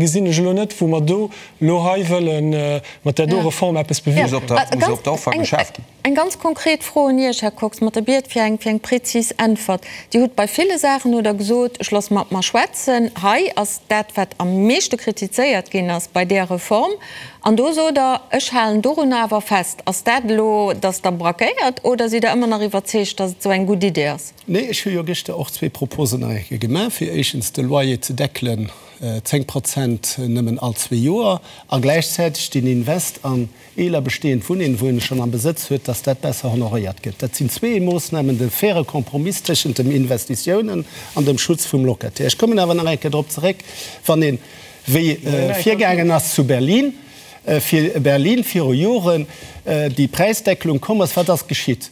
gesinn ech elo net, wou mer do elo hei wëlle mat där do Reform eppes bewierken. Muss op der Offer geschaaft ginn. Eng ganz konkret Fro un Iech, Här Kox, mat der Biet fir eng, fir eng prezis Äntwert. Dir hutt bei ville Saachen hutt Der gesot, ech loosse mat mer schwätzen. Hei ass dat, wat am meeschte kritizéiert ginn ass bei där Reform. An do sot Der, ech halen dorunner awer fest. Ass dat elo, datt Der braquéiert oder sidd Der ëmmer nach iwwerzeegt, datt et esou eng gutt Idee ass? Nee, ech hu jo gëschter och zwee Proposen nach eng Kéier gemaach, fir éischtens de Loyer ze deckelen, 10 Prozent nëmmen all zwee Joer, a gläichzäiteg den Invest an eeler bestehend Wunnengen, wou een schonn am Besëtz huet, dass dat besser honoréiert gëtt. Dat sinn zwee Moossnamen, de faire Compromiss tëschent dem Investitiounen an dem Schutz vum Locataire. Ech kommen awer nach eng Kéier drop zeréck, wann een, wéi virgaangen ass zu Berlin, fir Berlin viru Joren déi Präisdeckelung komm ass, wat ass geschitt?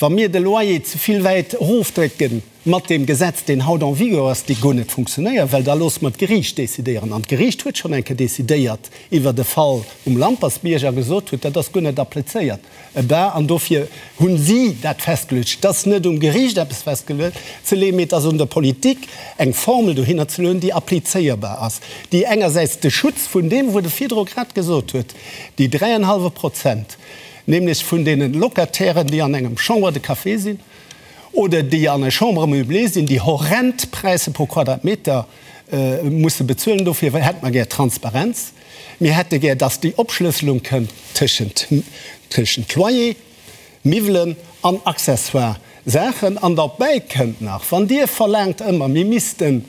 Wa mir de Loyer ze vill wäit erofdrécken mat deem Gesetz, deen haut en vigueur ass, dee guer net funktionéiert, well da loosse mer d'Geriicht decidéieren. An d'Geriicht huet schonn eng Kéier decidéiert iwwert e Fall um Lampersbierg a gesot huet, dat ass guer net applizéiert. Eh ben, an dofir hu si dat festgeluecht. Et ass net um Geriicht eppes festzeleeën, mee et ass un der Politik, eng Formel dohinner ze lueden, déi applizéierbar ass, déi engersäits de Schutz vun deem, wou de virdru grad gesot huet, déi dräienhallwe Prozent, nämlech vun deene Locatairen, déi an engem Chambre de café sinn oder déi an enger Chambre meublée sinn, déi horrend Präisser pro Quadratmeter musse bezuelen. Dofir hätte mer gär Transparenz. Mir hätte gär, dass déi Opschlësselung kënnt tëschent tëschent Loyer, Miwwelen an accessoire Saachen. An derbäi kënnt nach, wann Dir verlaangt ëmmer, mir missten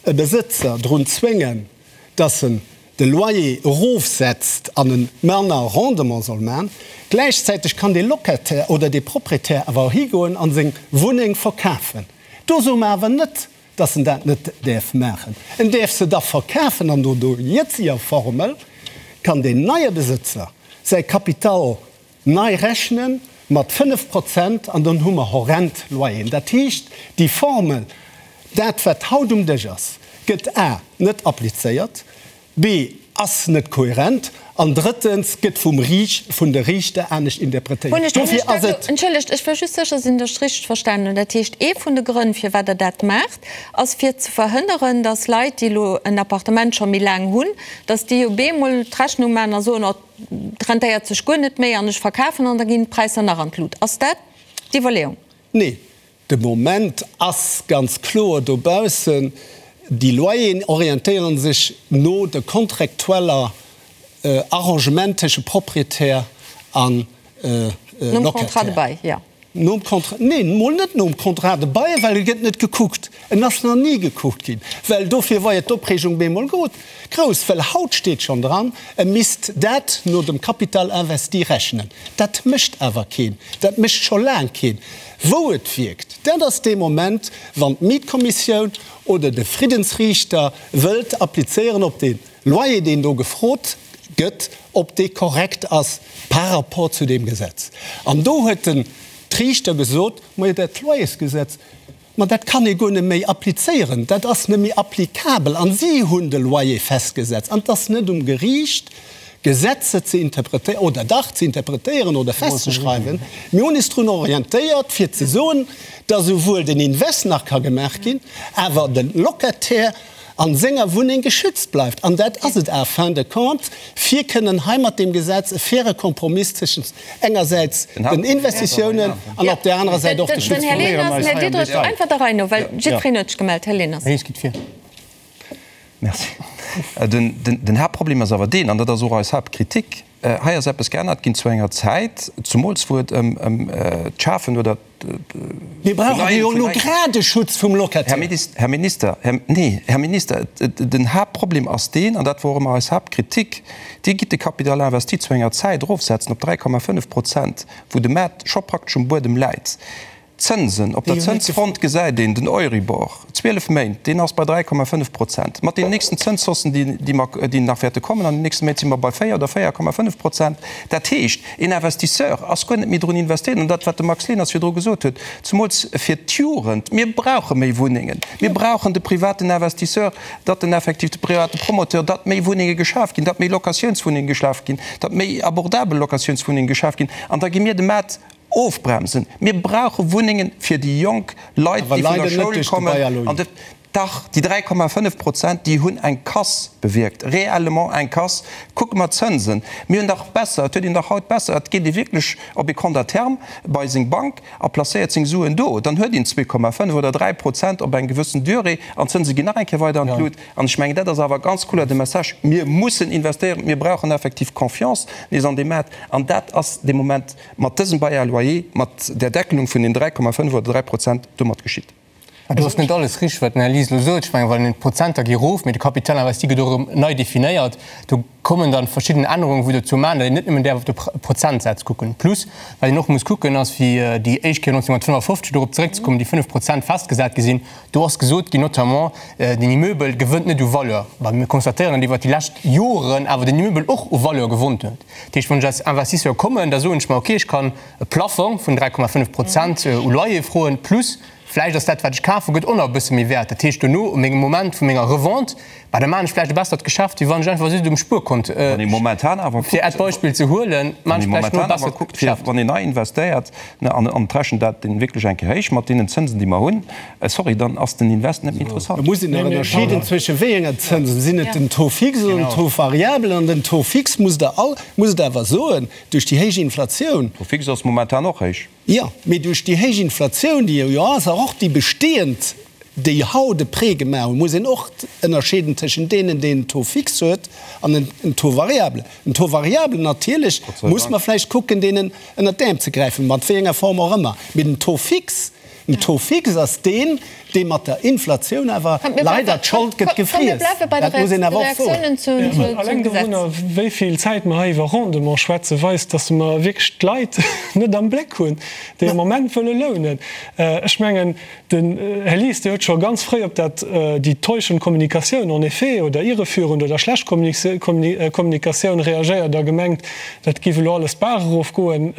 e Besëtzer drun zwéngen, dass en de Loyer erofsetzt an e manner Rendement soll man, gläichzäiteg kann dee Locataire oder dee Proprietär awer och higoen a seng Wunneng verkafen. Do soe mer awer net, dass en dat net däerf maachen. En däerf se da verkafen an no der jëtziger Formel kann deen neie Besëtzer säi Kapital nei rechnen mat 5 Prozent an dann hu mer horrend Loyeren. Dat heescht, déi Formel, dat wat haut um Dësch ass, gëtt a net applizéiert, b ass net kohärent an drëttens gëtt vum Riicht, vun de Riichter anescht interpretéiert. Dofir ass et. Entschëllegt, ech wëll just sécher sinn, datt ech richteg verstanen hunn. Dat heescht, ee vun de Grënn, firwat Der dat maacht, ass fir ze verhënneren, datt Leit, déi elo en Appartement scho méi laang hunn, datt déi op eemol d'Rechnung maachen a soen, oh, Et rentéiert sech guer net méi an ech verkafen an da ginn d'Präisser nach an d'Lut. Ass dat d'Iwwerleeung? Nee, de Moment ass ganz kloer dobaussen, déi Loyeren orientéiere sech no de kontraktueller Arrangement tësche Proprietär a Nom Contrat de Locataire. bail, jo. Nom Contrat, neen, mol net nom Contrat de bail, well e gëtt net gekuckt. En ass nach ni gekuckt ginn, well dofir war jo d'Opreegung bemol grouss, well haut steet schonn dran, e misst dat no dem Capital investi rechnen. Dat mécht awer keen, dat mécht scho laang keen. Wou et wierkt, dat ass dee Moment, wann d'Mietkommissioun oder de Friddensriichter wëllt applizéieren op dee Loyer, deen do gefrot gëtt, ob dee korrekt ass par rapport zu deem Gesetz. An do huet den Riichter gesot, Majo, dat Loyersgesetz, ma dat kann ee guer net méi applizéieren, dat ass net méi applicabel. An si hunn de Loyer festgesetzt. An et ass net um Geriicht, Gesetze ze interpretéieren, oder dach ze interpretéieren oder festzeschreiwen. Mir hunn is drun orientéiert, fir ze soen, dass esouwuel den Invest nach ka gemaach ginn, awer de Locataire an senger Wunneng geschützt bleift. An dat ass et en fin de compte, fir kënnen hei mat deem Gesetz e faire Kompromiss tëschent engersäits den Investitiounen an op där anerer Säit och de Schutz vum. Här Leners, Här Diderich, einfach der Rei no, well jiddwereen huet sech gemellt. Här Leners. Merci. Den Haaptproblem ass awer deen, an dat ass och eis Haaptkritik, Hei ass eppes geännert ginn zu enger Zäit, zumools wou et ëm d'Schafen oder Mir brauchen jo elo grad e Schutz vum Locataire. Här Minister, nee, Här Minister, den Haaptproblem ass deen, an dat wor och ëmmer eis Haaptkritik, Dir gitt de Capital investi zu enger Zäit erofsetzen op 3,5 Prozent, wou de Maart scho praktesch um Buedem läit. D'Zënsen, op der Zënsfront gesäit een den Euribor, 12 Méint, deen ass bei 3,5 Prozent. Mat den nächsten Zënshaussen, déi mer, déi nach wäerte kommen an den nächste Méint, si mer bei 4 oder 4,5 Prozent. Dat heescht, een Investisseur ass guer net méi drun investéiert. An dat, wat de Max Leners virdru gesot huet, zemools fir d'Jugend, mir brauche méi Wunnengen, mir brauchen de privaten Investisseur, datt en effektiv, de private Promoteur, datt méi Wunnenge geschaf ginn, datt méi Locatiounswunnenge geschaf ginn, datt méi abordabel Locatiounswunnenge geschaf ginn. An da gi mir de Maart Ofbremsen. Mir brauche Wunnengen fir déi jonk Leit, déi vun der Schoul kommen. An de, dach, déi 3,5 Prozent, déi hunn eng Casse bewierkt, réellement eng Casse. Kucke mer d'Zënsen. Mir hunn dach besser, et huet een dach haut besser, et geet ee wierklech op ee Compte à terme bei seng Bank a placéiert seng Suen do. Dann huet een 2,5 oder 3 Prozent op eng gewëssen Durée an d'Zënse ginn nach eng Kéier weider an d'Lut. An ech mengen, dat ass awer ganz kloer de Message, Mir mussen investéieren, mir brauchen effektiv Confiance nees an dee Maart. An dat ass de Moment mat dësem Bail à loyer, mat där Deckelung vun den 3,5 oder 3 Prozent domat geschitt. Do ass net alles richteg, wat den Här Lies elo sot. Ech mengen, well d'Prozenter gi erof, mee de Capital investi gëtt och erëm nei definéiert. Do kommen dann verschidden Ännerungen, wou dozou maachen, datt een net nëmmen däerf op de Prozentsaz kucken. Plus, wat een och muss kucken, ass, wéi déi éischt Kéier 1955, dorop zeréckzekommen, déi 5 Prozent festgesat gi sinn, do ass gesot ginn, notamment, den Immeubel gewënnt net u Valeur. Mä mir constatéieren, datt iwwert déi lescht Joren awer den Immeubel och u Valeur gewonnt huet. Dat heescht, wann ech als Investisseur kommen, da soen ech mer, okay, ech kann e Plafong vun 3,5 Prozent u Loyer froen, plus Vläicht ass dat, wat ech kafen, gëtt och nach e bësse méi wäert. Dat heescht, dono, um mengem Moment vu menger Revente, bah, da maachen ech vläicht e bessert Geschäft, wéi wann ech einfach just um Spuerkont, Wann ee momentan awer fir kuckt, Äert Beispill ze huelen, wann maachen ee ech vläicht no e momentan awer bessert kuckt, fir Geschäft. wann een nei investéiert, ne, an an et rechent dat deen wierklech eng Kéier héich mat deenen Zënsen, déi mer hunn, sorry, dann ass den Invest net méi interessant. Da muss een nach ënnerscheeden zwësche wéi enger Zënsen. Sinn et den Taux fixe oder den Taux variable? An den Taux fixe, musst Der all, musst Der awer soen, duerch déi héich Inflatioun, Taux fixe ass momentan och héich. Jo, mee duerch déi héich Inflatioun, déi jo ass, a och déi bestehend, déi haut e Prêt gemaach hunn, muss een och ënnerscheeden tëschent deenen, déi en Taux fixe huet an en Taux variable. En Taux variable, natierlech muss mer vläicht kucken, deenen ënnert d'Äerm ze gräifen, mat wéi enger Form och ëmmer. Mee den Taux fixe, den Taux fixe ass deen, dee mat der Inflatioun awer leider d'Schold gëtt gefriess. Dat muss een awer och soen. Alleng dorunner, wéi vill Zäit mer hei iwwer Rendement schwätzen, weist, dass mer wierklech d'Leit net am Bléck hunn, déi am Moment wëlle lounen. Ech mengen, den Här Lies, Dir huet scho ganz fréi op dat, déi täuschend Kommunikatioun en effet oder irreführend oder schlecht Kommunikatioun reagéiert a gemengt, dat géif elo alles d'Baach erofgoen.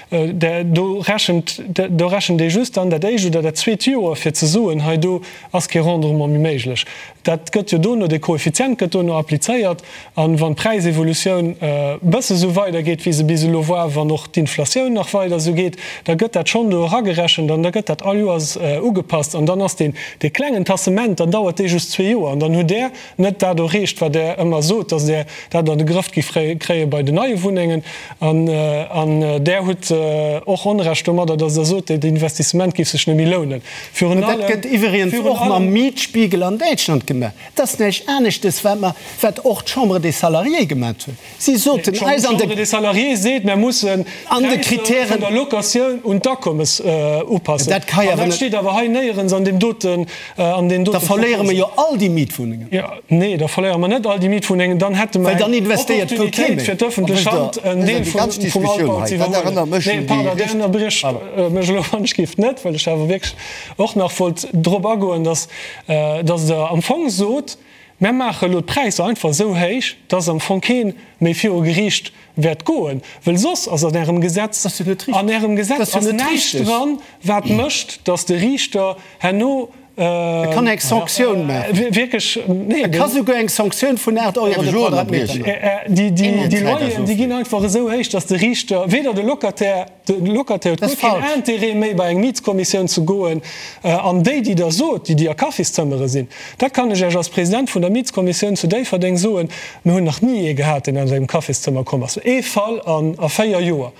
Do rechent, do rechent ee just dann dat éischt oder dat zweet Joer, fir ze soen, hei do ass kee Rendement méi méiglech. Dat gëtt jo dono, dee Koeffizient gëtt dono applizéiert. A wann d'Präisevolutioun e bësse sou weidergeet, wéi se bis elo war, wann och d'Inflatioun nach weider esou geet, da gëtt dat schonn do eragerechent an da gëtt dat all Joers ugepasst. An dann ass deen, dee klengen Tassement, dann dauert dee just zwee Joer an dann hutt Der net dat erreecht, wat Der ëmmer sot, dass Der dat an de Grëff giff kréie bei den neie Wunnengen. An Der hutt och Onrecht domadder, dass Der sot, dat Investissement géif sech net méi lounen. Virun allem. Dat gëtt iwwregens och mam Mietspiegel an Däitschland gemaach. Dat ass näischt aneschtes, wat mer, wat och d'Chambre des Salariés gemaach huet. Si soten eis an de. D'Chambre des Salariés seet, mer mussen d'Präisser vun der Locatioun un d'Akommes upassen. Dat ka jo awer net. Dat steet awer hei néierens an deem doten, an deenen dote Da verléiere mer jo all déi Mietwunnengen. Jo, nee, da verléiere mer net all déi Mietwunnengen. Dann hätte mer eng Opportunitéit fir d'ëffentlech Hand, en Deel vum Altbau ze iwwerhuelen. Nee, pardon, Dir ënnerbriecht mech elo wann ech géif net, well ech awer wierklech och nach wollt drop agoen, dass, dass Der am Fong sot, Mär maache elo d'Präisser einfach esou héich, dass am Fong kee méi viru Geriicht wäert goen, wëll soss ass an Ärem Gesetz, an Ärem Gesetz ass näischt dran, wat mécht, dass de Riichter herno E kann eng Sanktioun maachen. Wierklech, nee. E ka souguer eng Sanktioun vun 8 Euro de Quadratmeter maachen. Déi Loyeren, déi ginn einfach esou héich, dass de Riichter, weder de Locataire, De Locataire huet guer keen Intérêt méi bei eng Mietskommissioun ze goen. An déi, déi Der sot, déi, déi a Kaffiszëmmere sinn, dat kann ech Iech als President vun der Mietskommissioun zu Déifferdeng soen, mir hunn nach ni ee gehat, deen aus engem Kaffiszëmmer komm ass. Ee Fall a 4 Joer.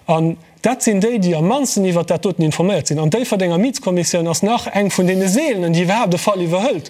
An dat sinn déi, déi am mannsten iwwert dat doten informéiert sinn. An d'Déifferdenger Mietskommissioun ass nach eng vun deene seelenen, déi iwwerhaapt e Fall iwwerhëlt.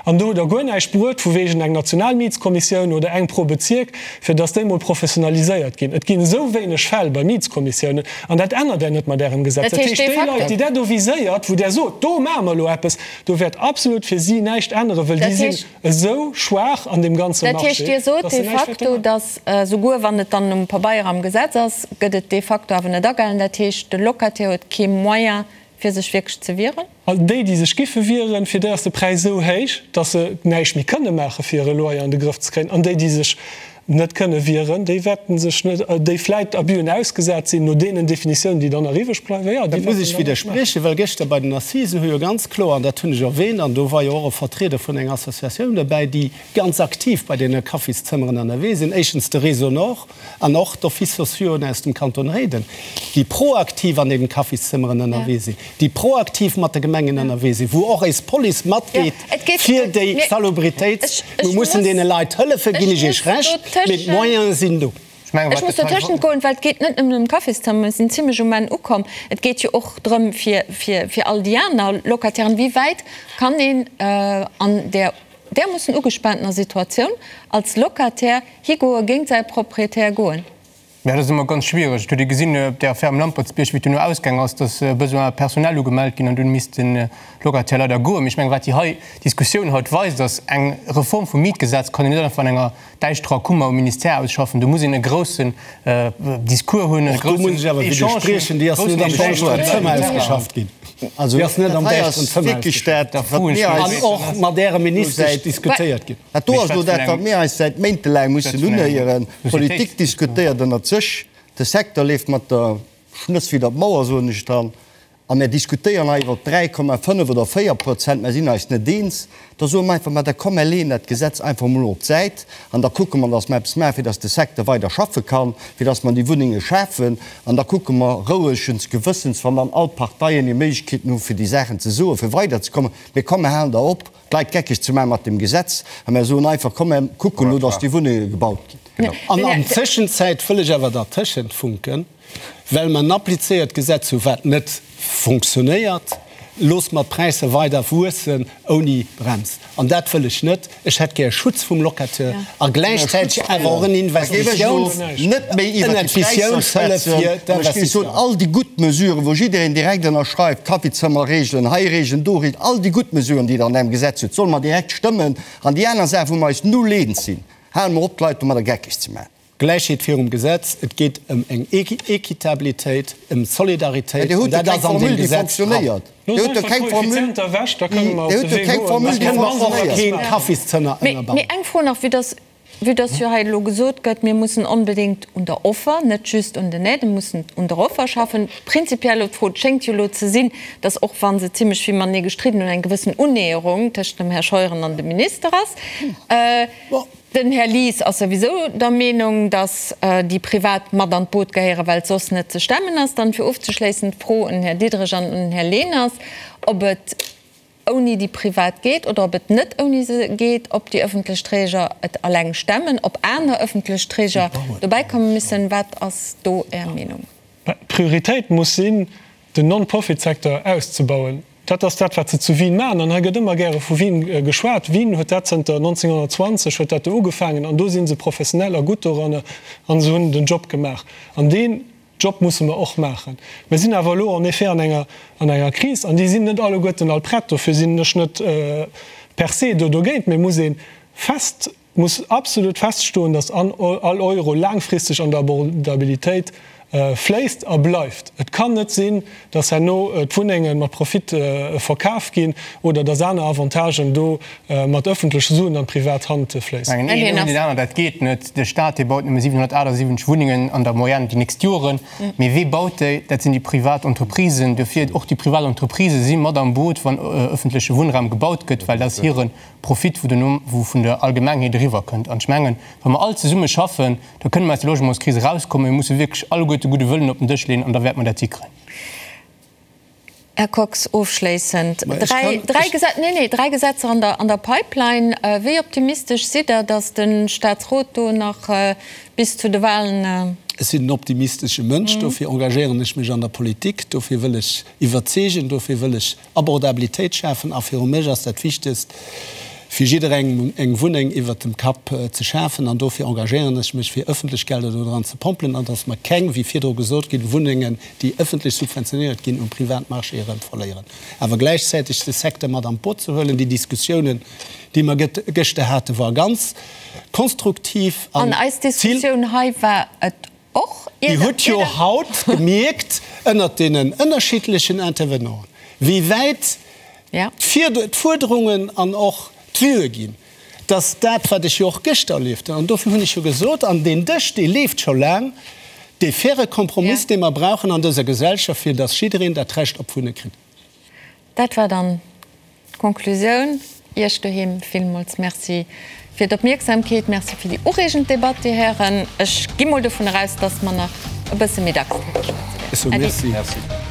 An do hutt Der guer näischt bruet vu wegen eng national Mietskommissioun oder eng pro Bezierk, fir dass déi mol professionaliséiert ginn. Et ginn esou wéineg Fäll bei Mietskommissiounen, an dat ännert Der net mat Ärem Gesetz. Dat heescht, déi Leit, déi Der do viséiert, wou Der sot, do maache mer elo eppes, do wäert absolut fir si näischt änneren, wëll déi sinn esou schwaach an deem ganze Dat heescht, Marché, Dir sot dass se de näischt wäerte facto, maachen. dass souguer wann et dann um Pabeier am Gesetz ass, gëtt et de facto awer net agehalen. Dat heescht, de Locataire huet kee Moyen, fir sech wierklech ze wieren? All déi, déi sech giffe wieren, fir déi ass de Präis esou héich, datt se näischt méi kënne maache fir hire Loyer an de Grëff ze kréien. An déi, déi sech net kënne wieren, déi wäerten sech net, déi vläit Abüen ausgesat sinn, no deenen Definitiounen, déi dann nach iwwreg bleiwen, jo, déi wäerten Dat muss ech dann näischt maachen. widderspriechen, well gëschter bei den Assisen hu jo ganz kloer, an dat hunn ech erwähnt, an do war jo och e Vertrieder vun enger Associatioun derbäi, déi ganz aktiv bei deene Kaffiszëmmeren ënnerwee sinn, éischtens de Réseau Nord an och d'Offices sociaux aus dem Kanton Réiden, déi proaktiv an deenen Kaffiszëmmeren ënnerwee sinn, déi proaktiv mat de Gemengen ënnerwee sinn, wou och eis Police matgeet fir déi Salubritéit. Mir mussen deene Leit hëllefen, ginn ech Iech Recht, mee d'Moyene sinn do. Ech muss dotëschent goen, well et geet net nëmmen ëm d'Kaffiszëmmer, mir sinn zimlech um Enn ukomm. Et geet jo och drëm fir, fir, fir all déi aner Locatairen. Wéi wäit kann een an där därmoossen ugespaantener Situatioun als Locataire higoe géint säi Proprietär goen? Jo, dat ass ëmmer ganz schwiereg. Et huet ee gesinn op där Affär um Lampertsbierg, wéi et duerno ausgaang ass, dass Besoins personnels ugemellt ginn an dunn misst de Locataire leider goen. Mee ech mengen, wat déi hei Diskussioun haut weist, ass, eng Reform vum Mietgesetz kann een net einfach an enger däischterer Kummer um Ministère ausschaffen. Do muss een e groussen Discours hunn, e Och do muss groussen ech awer Echange hunn, widderspriechen, déi ass groussen net am Echange däischteren hunn. Zëmmer ausgeschafft ginn. Also Déi ass net dat am hei däischteren ass Zëmmer wierklech ausgeschafft dat, Da wat froen ech mir mech eis An och mat Ärer elo Ministesch säit, diskutéiert ginn. Dat do Mee ass elo ech schwätze dat, vun wat engem, mir eis säit méintelaang ech mussen schwätze vun engem unhéieren. D'Politik Societéits. diskutéiert ënnert sech, de Secteur leeft mat der Schnëss widder d'Mauer, soen ech dann, a mir diskutéieren hei iwwer 3,5 oder 4 Prozent, mer sinn eis net eens. Da soe mer einfach, ma da komm, mer leeën dat Gesetz einfach emol op d'Säit an da kucke mer, datt mer eppes maachen, fir datt de Secteur weider schaffe kann, fir datt mer déi Wunnenge schafen. An da kucke mer rouegens Gewëssens, wann dann all d'Parteien hir Méiglechkeeten hu fir déi Saachen ze soen, fir weiderzekommen, mee komm, mer halen da op, d'Leit geckeg ze maachen mat deem Gesetz a mer soen einfach, komm, mer kucken elo, datt déi Wunnenge gebaut ginn. An an Tëschenzäit wëll ech awer dertëschent funken, Well mer en applizéiert Gesetz hu wat net fonctionnéiert, loosse mer d'Präisser weider wuessen ouni Brems. An dat wëll ech net. Ech hätt gär e Schutz vum Locateur a gläichzäiteg awer och en Investitiouns, Net méi iwwert déi Präisser Investitiounshëllef schwätzen. fir An ech géif soen, d'Investisseuren. all déi gutt Mesuren, wou jiddereen direkt ënnerschreift, Kaffizëmmerregelen, hei Regeln, do Regeln, all déi gutt Mesuren, déi Der an engem Gesetz hutt, solle mer direkt stëmmen. An déi aner Saach, wou mer eis null eens sinn, hale mer op, d'Leit domadder geckeg ze maachen. Gläichheet virum Gesetz, et geet ëm eng Equitabilitéit, ëm Solidaritéit, Dir an hutt jo dat keng ass an Formule, deem déi Gesetz dran. fonctionnéiert. Dir Looss hutt jo einfach keng Formule, d'Koeffizienter ewech, da kënne mer Dir op hutt de jo Wee keng goen. Formule, Da déi kënne mer och fonctionnéiert. Keen Kaffiszënner Mee, ënnerbauen. mee eng Fro nach, vue dass, vue dass jo hei elo gesot gëtt, mir mussen onbedéngt un der Offer, net just un den Aiden, mussen un der Offer schaffen. Prinzipiell elo d'Fro, et schéngt jo elo ze sinn, dass och wa se zimlech vill matenee gestridden hunn, eng gewëssen Unnäherung tëschent dem Här Scheuren an dem Minister ass. Den Här Lies ass souwisou der Meenung, datt déi Privat mat an d'Boot gehéieren, well et soss net ze stemmen ass. Dann, fir ofzeschléissen, d'Fro un den Här Diderich an un den Här Leners, ob et ouni déi Privat geet oder ob et net ouni se geet, ob déi ëffentlech Träger et alleng stemmen, ob aner ëffentlech Träger dobäi komme müssen. Wat ass do Är Meenung? D'Prioritéit muss sinn, den Non-Profit-Secteur auszebauen. Dat ass dat, wat se zu Wien maachen. An hei gëtt ëmmer gäre vu Wien geschwat. Wien huet dat zënter 1920 huet dat do ugefaangen an do si se professionell a gutt doranner a se hunn den Job gemaach. An deen Job musse mer och maachen. Mir sinn awer elo en effet an enger, an enger Kris an déi sinn net alleguerten all prett. Dofir sinn ech net per se do dogéint, mee muss ee fest, muss absolut feststoen, dass all Euro laangfristeg an der Abordabilitéit fléisst a bleift. Et kann net sinn, dass herno d'Wunnenge mat Profit verkaf ginn oder dass aner Avantagen do mat ëffentleche Suen an d'privat Hand fléissen. Mengen een ouni deen aneren, dat geet net. De Staat, dee baut nëmme 778 Wunnengen an der Moyenne déi nächst Joren. Mee wee baut déi? Dat sinn déi privat Entreprisen. Dofir, och déi privat Entreprisë si mat am Boot, wann ëffentleche Wunnraum gebaut gëtt, well dat ass hire Profit, wou duerno, wou vun der Allgemengheet eriwwer kënnt. An ech mengen, wa mer all zesumme schaffen, da kënne mer aus der Logementskris erauskommen. Mir musse wierklech alleguerte gudde Wëllen op den Dësch leeën an da wäerte mer dat hikréien. Här Kox, ofschléissend, Ma ech dräi, kann, dräi ech. Gesetz, nee, nee, dräi Gesetzer an der, an der Pipeline. Wéi optimistesch sidd Der, datt de Statsrot do nach bis zu de Wahlen. Ech sinn en optimistesche Mënsch, dofir engagéieren ech mech an der Politik, dofir wëll ech iwwerzeegen, dofir wëll ech Abordabilitéit schafen a viru mech ass dat Wichtegst, fir jidderengem eng Wunneng iwwert dem Kapp ze schafen an dofir engagéieren ech mech, fir ëffentlech Gelder do dran ze pompelen an dass mer keng, wéi virdru gesot ginn, Wunnengen, déi ëffentlech subventionéiert ginn, um Privatmarché erëm verléieren. Awer gläichzäiteg de Secteur mat an d'Boot ze huelen. Déi Diskussiounen, déi mer gëschter haten, war ganz konstruktiv an An eis Diskussioun hei war et Och Dir hutt jo haut gemierkt ënnert deenen ënnerschiddlechen Intervenanten, wéi wäit d'Fuerderungen an och d'Vuë ginn, dass dat, wat ech jo och gëschter erlieft hunn, an dofir hunn ech jo gesot, an deen Dësch, dee leeft scho laang, dee faire Kompromiss, dee mer brauchen an dëser Gesellschaft, fir dass jiddereen dat Recht op Wunne kritt. Dat war dann d'Konklusioun. Iech doheem villmools Merci fir d'Opmierksamkeet. Merci fir déi ureegend Debatt, Dir Hären. Ech gi mol dovun eraus, dass mer nach e bësse méi dacks driwwer schwätze wäerten. Äddi. Merci.